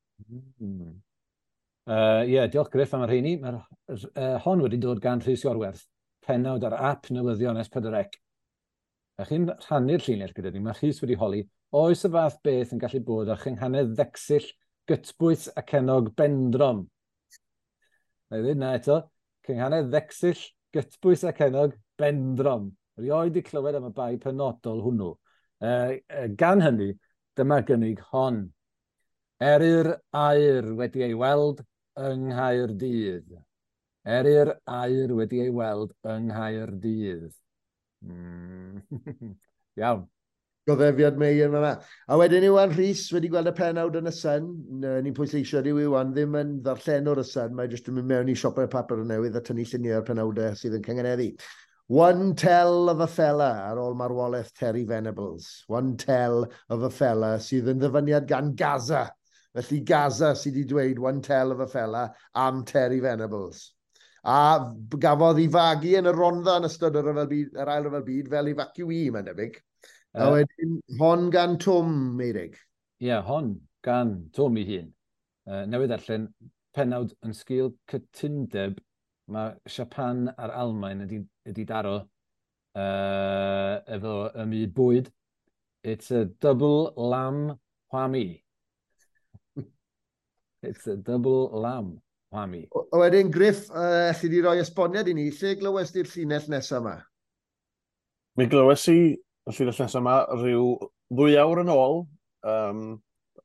Yeah, diolch Griff am y rheini. Mae'r hon wedi dod gan Rhys Iorwerth, pennawd ar app newyddion S4C. A chi'n rhannu'r llinell gyda ni, mae Rhys wedi holi, oes y fath beth yn gallu bod â chynghanedd ddecsill gytbwys ac enog bendrom? Na i ddweud na eto, cynghanedd ddecsill gytbwys ac enog bendrom. Rioed i clywed am y bai penodol hwnnw. Gan hynny, dyma gynnig hon. Eryr aur wedi ei weld yng Nghaerdydd. Eryr aur wedi ei weld yng Nghaerdydd. Iawn. Goddefiad mei yn fan'na. A wedyn Iwan Rhys wedi gweld y pennawd yn y Sun. Ni'n pwysleisio dyw Iwan ddim yn ddarllenwr y Sun. Mae jyst yn mynd mewn i siopau papur newydd a tynnu lluniau o'r penawdau sydd yn cynganeddu. "One tell of a fella" ar ôl marwolaeth Terry Venables. "One tell of a fella" sydd yn ddyfyniad gan Gaza. Felly Gaza sydd wedi dweud "one tell of a fella" am Terry Venables. A gafodd ei fagu yn y Rhondda yn ystod y ryfel byd, yr ail ryfel byd fel evacuee, mae'n debyg. A wedyn, hon gan Twm, Meirig. Ie, yeah, hon gan Twm ei hun. Newydd darllen pennawd yn sgil cytundeb mae Japan a'r Almaen ydi daro efo y myd bwyd. "It's a double lamb whammy. It's a double lamb whammy." O wedyn, Griff, alli di roi esboniad i ni, lle glywes di'r llinell nesaf yma? Mi glywes i y llinell nesaf yma rhyw 2 awr yn ôl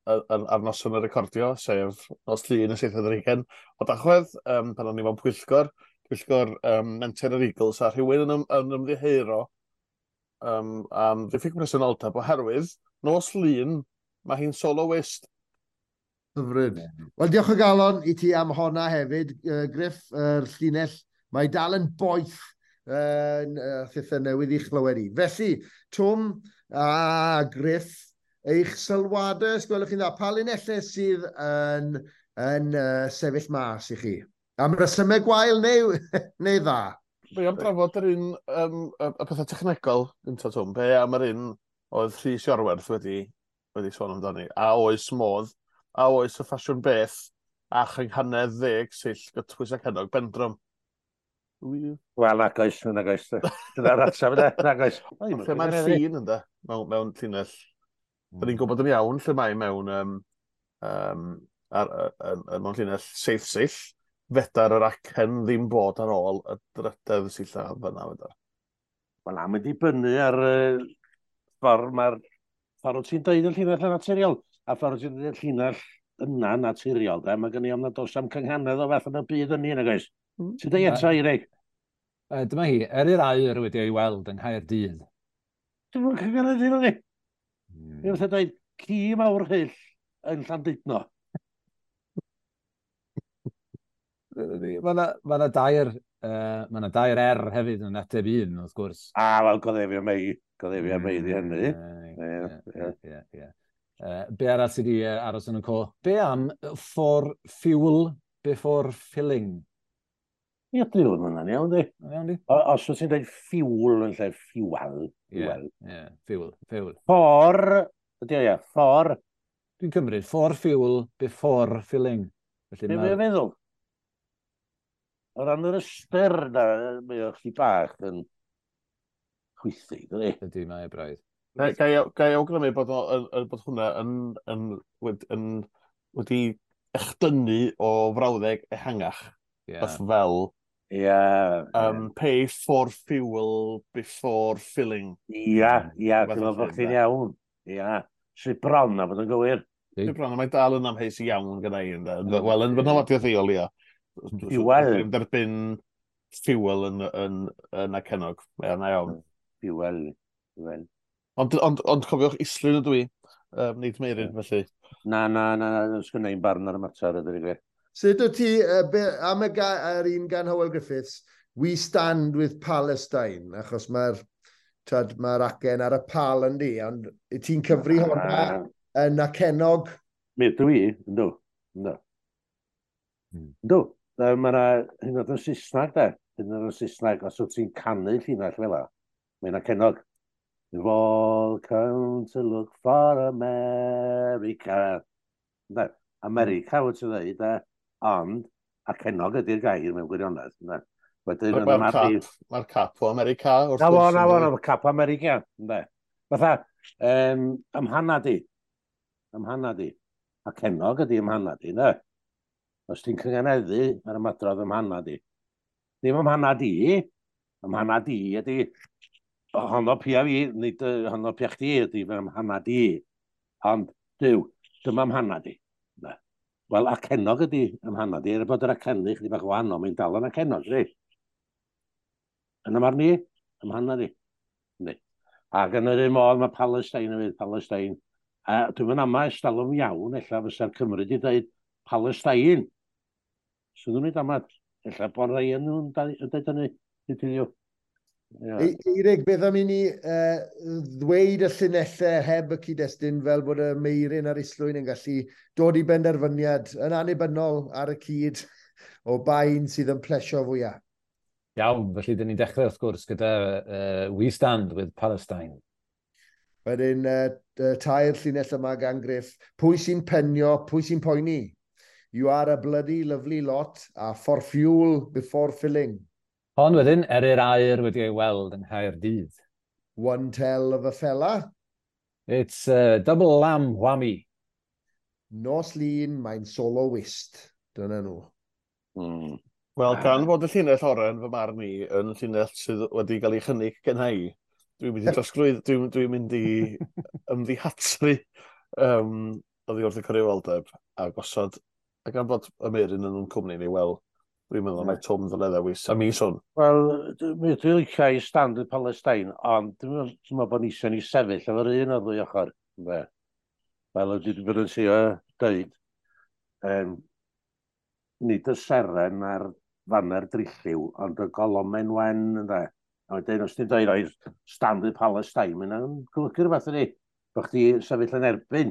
ar noson y recordio, sef nos Llun y 27 o Dachwedd, pan o'n i mewn pwyllgor Menter yr Eagles, a rhywun yn ymddiheuro am ddiffyg presenoldeb oherwydd nos Lun Mae hi'n soloist. Hyfryd. Wel, diolch o galon i ti am honna hefyd, Griff, yr llinell. Mae dal yn boeth thithau newydd i'ch chlywed i. Felly, Twm a Griff, eich sylwadau, os gwelwch chi'n dda, pa linellau sydd yn sefyll mas i chi? Am resymau gwael neu dda? Be am drafod yr un, y pethau technegol, gynta, Twm, be am yr un oedd Rhys Iorwerth wedi sôn amdani? A oes modd, a oes y ffasiwn beth a chynghanedd 10 sill gytbwys ac hennog bendrwm? Wel, nag oes, nag oes. Dyna'r ateb yna, nag oes. Lle mae'r ffin ynddo, mewn llinell. Da ni'n gwybod yn iawn lle mae mewn llinell seith sill. Fedar yr acen ddim bod ar ôl y drydedd sillaf fyna. Fedar. Wel, am wedi dibynnu ar ffordd mae'r ffordd wyt ti'n deud y llinell yn naturiol, a ffordd wyt ti'n deud y llinell yna naturiol, de, mae gen i ofn nad oes am cynghanedd o fath yn y byd yn ni, nag oes? Ti'n deud eto, Eirig? Dyma hi, Eryr Aur wedi ei weld yng Nghaerdydd. Dwi'n mwyn cynghanedd hyn o'n i. Dwi'n fatha dweud, ci mawr hyll yn Llandudno. Mae yna dair R hefyd yn ateb un, wrth gwrs. A, wel, goddefio mei. Goddefio mei di hynny. Ie. Be arall sydd wedi aros yn y co? Be am "for fuel before filling"? Ie, dwi'n meddwl hwnna'n iawn, di. Iawn, di? Os wyt ti'n dweud fuel yn lle fuel. Ie, yeah, fuel, fuel. For, ydy o, ie, for. Dwi'n cymryd, for fuel before filling. Felly Be mae'n feddwl? O ran yr ystyr na, mae o chdi bach yn chwythu, dydy? Ydy, mae e braidd. Ga i awgrymu bod hwnna yn wedi echdynnu o frawddeg ehangach. Yeah. Fel pay for fuel before filling. Ia, dwi'n meddwl bod chdi'n iawn. Ia, sydd bron a bod yn gywir. Sydd bron, a mae dal yn amheus iawn gyda i. Wel, yn fy nholadiaeth i o leia. Fuel. Dwi'n derbyn fuel yn acennog. Ie, na iawn. Fuel. Fuel. Ond cofiwch, Islwyn ydw i, nid Meirin, felly. Na, na, na, na, sgynna i'n barn ar y mater, ydw i gwir. Sut wyt ti, am yr un gan Hywel Griffiths, "We stand with Palestine", achos mae'r mae acen ar y pal yn di, ond ti'n cyfri hwnna yn acennog? Mi ydw i, yndw. Yndw. Yndw. Mae yna, hyn oed yn Saesneg, de. Hyn oed yn Saesneg, os wyt ti'n canu llinell fel la, mae'n acennog. "We've all come to look for America." Ynde? America wyt ti'n dweud, de? Ond acennog ydy'r gair mewn gwirionedd. Ynde? Wedyn, Mae'r cap, mae cap o America. Na fo, na fo, na fo, cap o America. Ynde? Fatha, ymhana di. Ymhana di. Acennog ydy ymhana di, ynde? Os ti'n cynganeddu ar ymadrodd ymhana di. Ddim ymhana di, ymhana di ydy honno pia fi, nid honno pia chdi ydy fy ymhana di. Ond, dyw, dyma ymhana di. Wel, acennog ydy ymhana di, er bod yr acennu chdi bach wahanol, mae'n dal yn acennog, si. Yn y marn i, ymhana di. Yndi. Ac yn yr un modd mae Palestine hefyd, Palestine. A dwi'n mynd ama estalwm iawn, ella fysa'r Cymru wedi dweud Palestine. Sydd nhw'n ei damad. Ella bod rhai yn nhw'n dweud hynny. Dydyn nhw. Eirig, beth am i ni ddweud y llinellau heb y cyd-destun fel bod y Meirin a'r Islwyn yn gallu dod i benderfyniad yn annibynnol ar y cyd o bain sydd yn plesio fwyaf? Iawn, felly dyn ni'n dechrau wrth gwrs gyda "We Stand with Palestine". Wedyn, tair llinell yma gan Griff. Pwy sy'n penio, pwy sy'n poeni? You are a bloody lovely lot, a for fuel before filling. Hon wedyn, Eryr Aur wedi ei weld yng Nghaerdydd. One tell of a fella. It's a double lamb whammy. Nos Lun, mae'n soloist. Dyna nhw. Wel, gan fod y llinell oren fy marn i yn llinell sydd wedi cael ei chynnig gen i, dwi'n mynd i drosglwydd, dwi mynd i ymddihatru oddi wrth y cyfrifoldeb a gosod, a gan fod y Meirin yn cwmni ni, wel, dwi'n meddwl mai Twm ddyle ddewis a mis hwn. Wel, dwi'n licio "I stand with Palestine", ond dwi'n meddwl bod ni eisiau ni sefyll efo'r un o'r ddwy ochr. Ynde? Fel ydy wedi bod yn trio dweud, nid y seren a'r faner drilliw, ond y golomen wen, ynde. A wedyn, os ti'n dweud, oes, stand with Palestine, mae'n golygu rhywbeth ydy. Bo chdi sefyll yn erbyn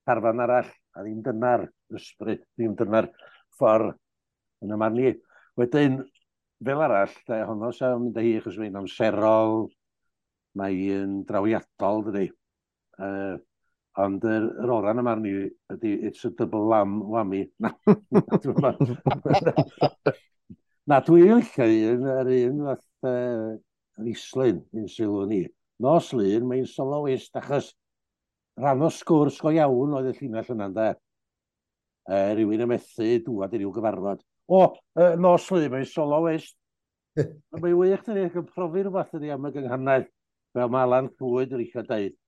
carfan arall, a ddim dyna'r ysbryd, ddim dyna'r ffordd yn y marn i. Wedyn, fel arall, de, honno sa'n mynd â hi, achos mae'n amserol, mae'n drawiadol, dydy. Ond yr ora yn y marn i ydy it's a double lamb whammy. Na, na dwi'n licio un, yr un fath Islyn, un sylw ni. Nos Lun, mae'n soloist, achos rhan o sgwrs go iawn oedd y llinell yna, ynde. Rhywun yn methu dŵad i ryw gyfarfod. O, nos Lun, mae'n soloist. Mae'n wych, dydy, ac yn profi rhywbeth ydy am y gynghanedd, fel mae Alan Llwyd yn eisiau dweud.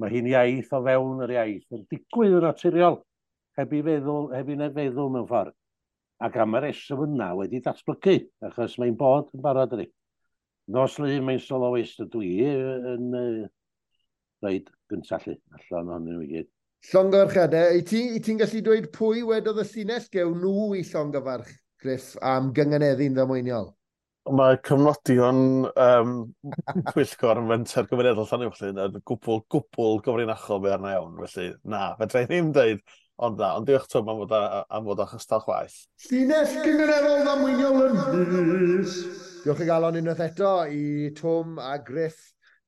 Mae hi'n iaith o fewn yr iaith, yn digwydd yn naturiol, heb i feddwl, heb i neb feddwl mewn ffordd. Ac am y reswm yna wedi datblygu, achos mae'n bod yn barod ydy. Nos Lun mae'n soloist ydw i yn rhaid gyntaf lly, allan ohonyn nhw i gyd. Llongyfarchiadau, i ti'n gallu dweud pwy wedodd y llinell gewn nhw i llongyfarch, Griff, am gynganeddu'n ddamweiniol? Mae cyfnodion pwyllgor yn fenter gymunedol Llanuwchllyn yn gwbl gyfrinachol be arna iawn, felly na, fedra i ddim dweud, ond na, ond diolch Twm am fod o chystal chwaith. Llinell gymunedol ddamweiniol yn llys. Diolch i galon unwaith eto i Twm a Griff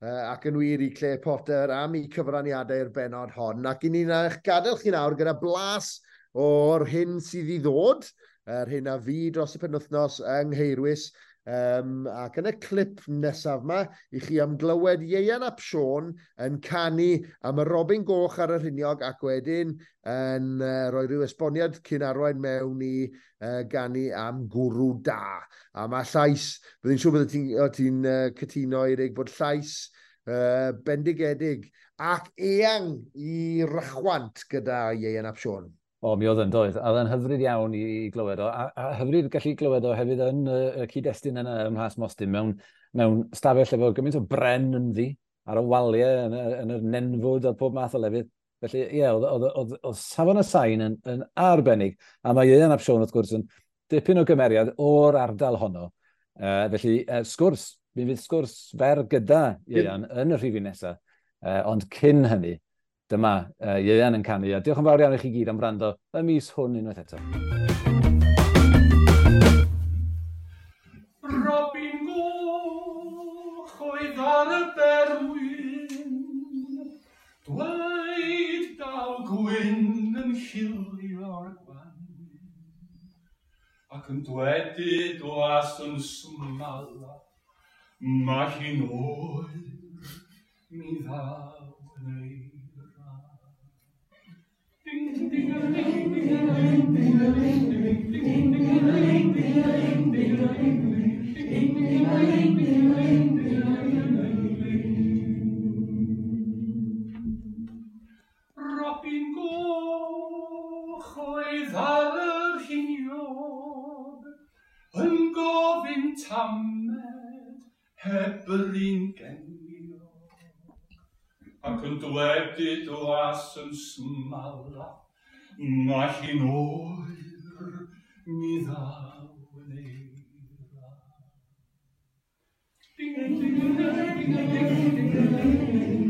ac yn wir i Claire Potter am eu cyfraniadau i'r bennod hon. Ac i ni'n eich gadael chi nawr gyda blas o'r hyn sydd i ddod, yr hyn a fu dros y penwythnos yng Nghaerwys. Ac yn y clip nesaf yma, i chi am glywed Ieuan ap Siôn yn canu am y Robin Goch ar y rhiniog ac wedyn yn rhoi rhyw esboniad cyn arwain mewn i ganu am gwrw da. A mae llais, byddai'n siŵr bydde ti'n cytuno, Eirig, bod llais bendigedig ac eang i rychwant gyda Ieuan ap Siôn. O, mi oedd yn doedd. A oedd yn hyfryd iawn i glywed o. A hyfryd gallu glywed o hefyd yn y cyd-destun yna ym Mhlas Mostyn, mewn stafell efo gymaint o bren ynddi, ar y waliau, yn yr nenfwd a pob math o lefydd. Felly, ie, oedd safon y sain yn arbennig. A mae Ieuan ap Siôn, wrth gwrs, yn dipyn o gymeriad o'r ardal honno. Felly, sgwrs, mi fydd sgwrs fer gyda Ieuan yn y rhifyn nesaf. Ond cyn hynny, dyma Ieuan yn canu, a diolch yn fawr iawn i chi gyd am wrando y mis hwn unwaith eto. Robin Goch oedd ar y berwyn, dweud daw gwyn yn chilio'r gwanwyn, ac yn dwedyd was yn smala, mae hi'n oer, mi ddaw yn ei. Ding ding ding ding ding ding ding ding ding ding ding ding ding. Robin Goch oedd ar yr hiniog, yn gofyn tamed heb yr un geniog, ac yn dwedyd was yn smala, mae hi'n oer, mi ddaw yn eira. Ding ding ding ding ding ding ding ding ding ding ding.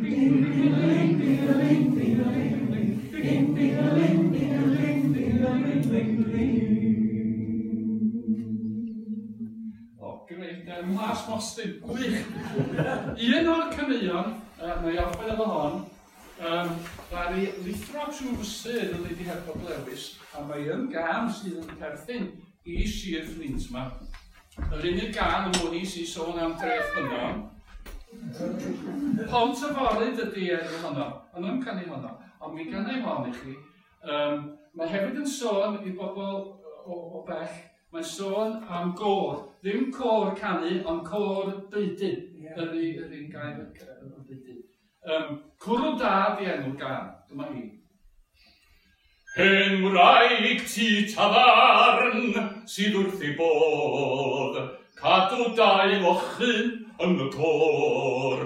O, greit, Mhlas Mostyn, gwych. Un o'r caneuon, na i orffen efo hon, ddaru lithro trwy fysedd yn Lady Herford Lewis, a mae yn gân sydd yn perthyn i Sir Fflint yma. Yr unig gân yn mwyn i sy'n sôn am dreth ffynnon. Pont y Foryd ydy enw honno, ond yn canu honno, ond mi ganai hon i chi. Mae hefyd yn sôn i bobl o bell, mae'n sôn am gôr, ddim côr canu, ond côr deudyn, yr un gair deudyn. Cwrw da di enw'r gân, dyma hi. Hen wraig tŷ tafarn sydd wrth ei bodd, Cadw dau fochyn yn y côr,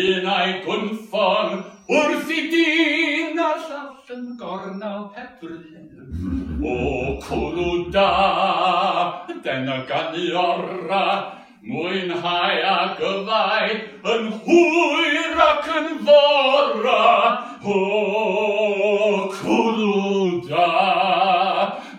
un a'i gwnffon wrth i dyn a'r llall yn gornel heb bryd. O cwrw da, dyna ganu ora, mwynhau ac yfau yn hwyr ac yn fora. O cwrw da,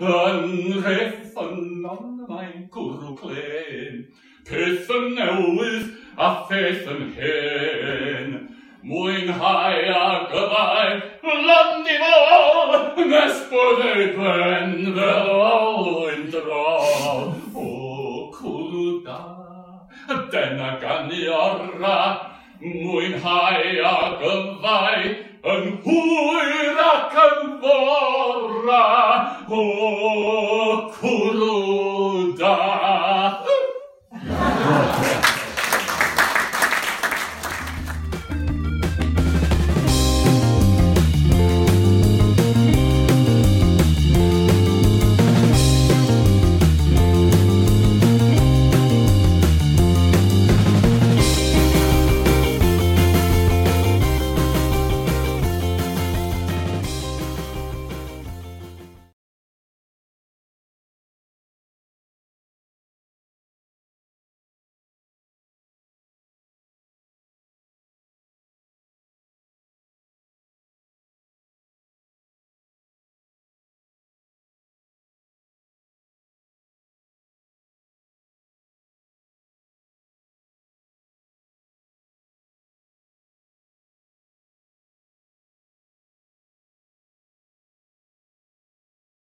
yn Rheffynon mae'n gwrw clen, peth yn newydd a pheth yn hen. Mwynhau ac yfau lan i fol, nes bod ei ben fel olwyn drol. O cwrw da, dyna ganu ora, mwynhau ac yfau yn hwyr ac yn fora. O cwrw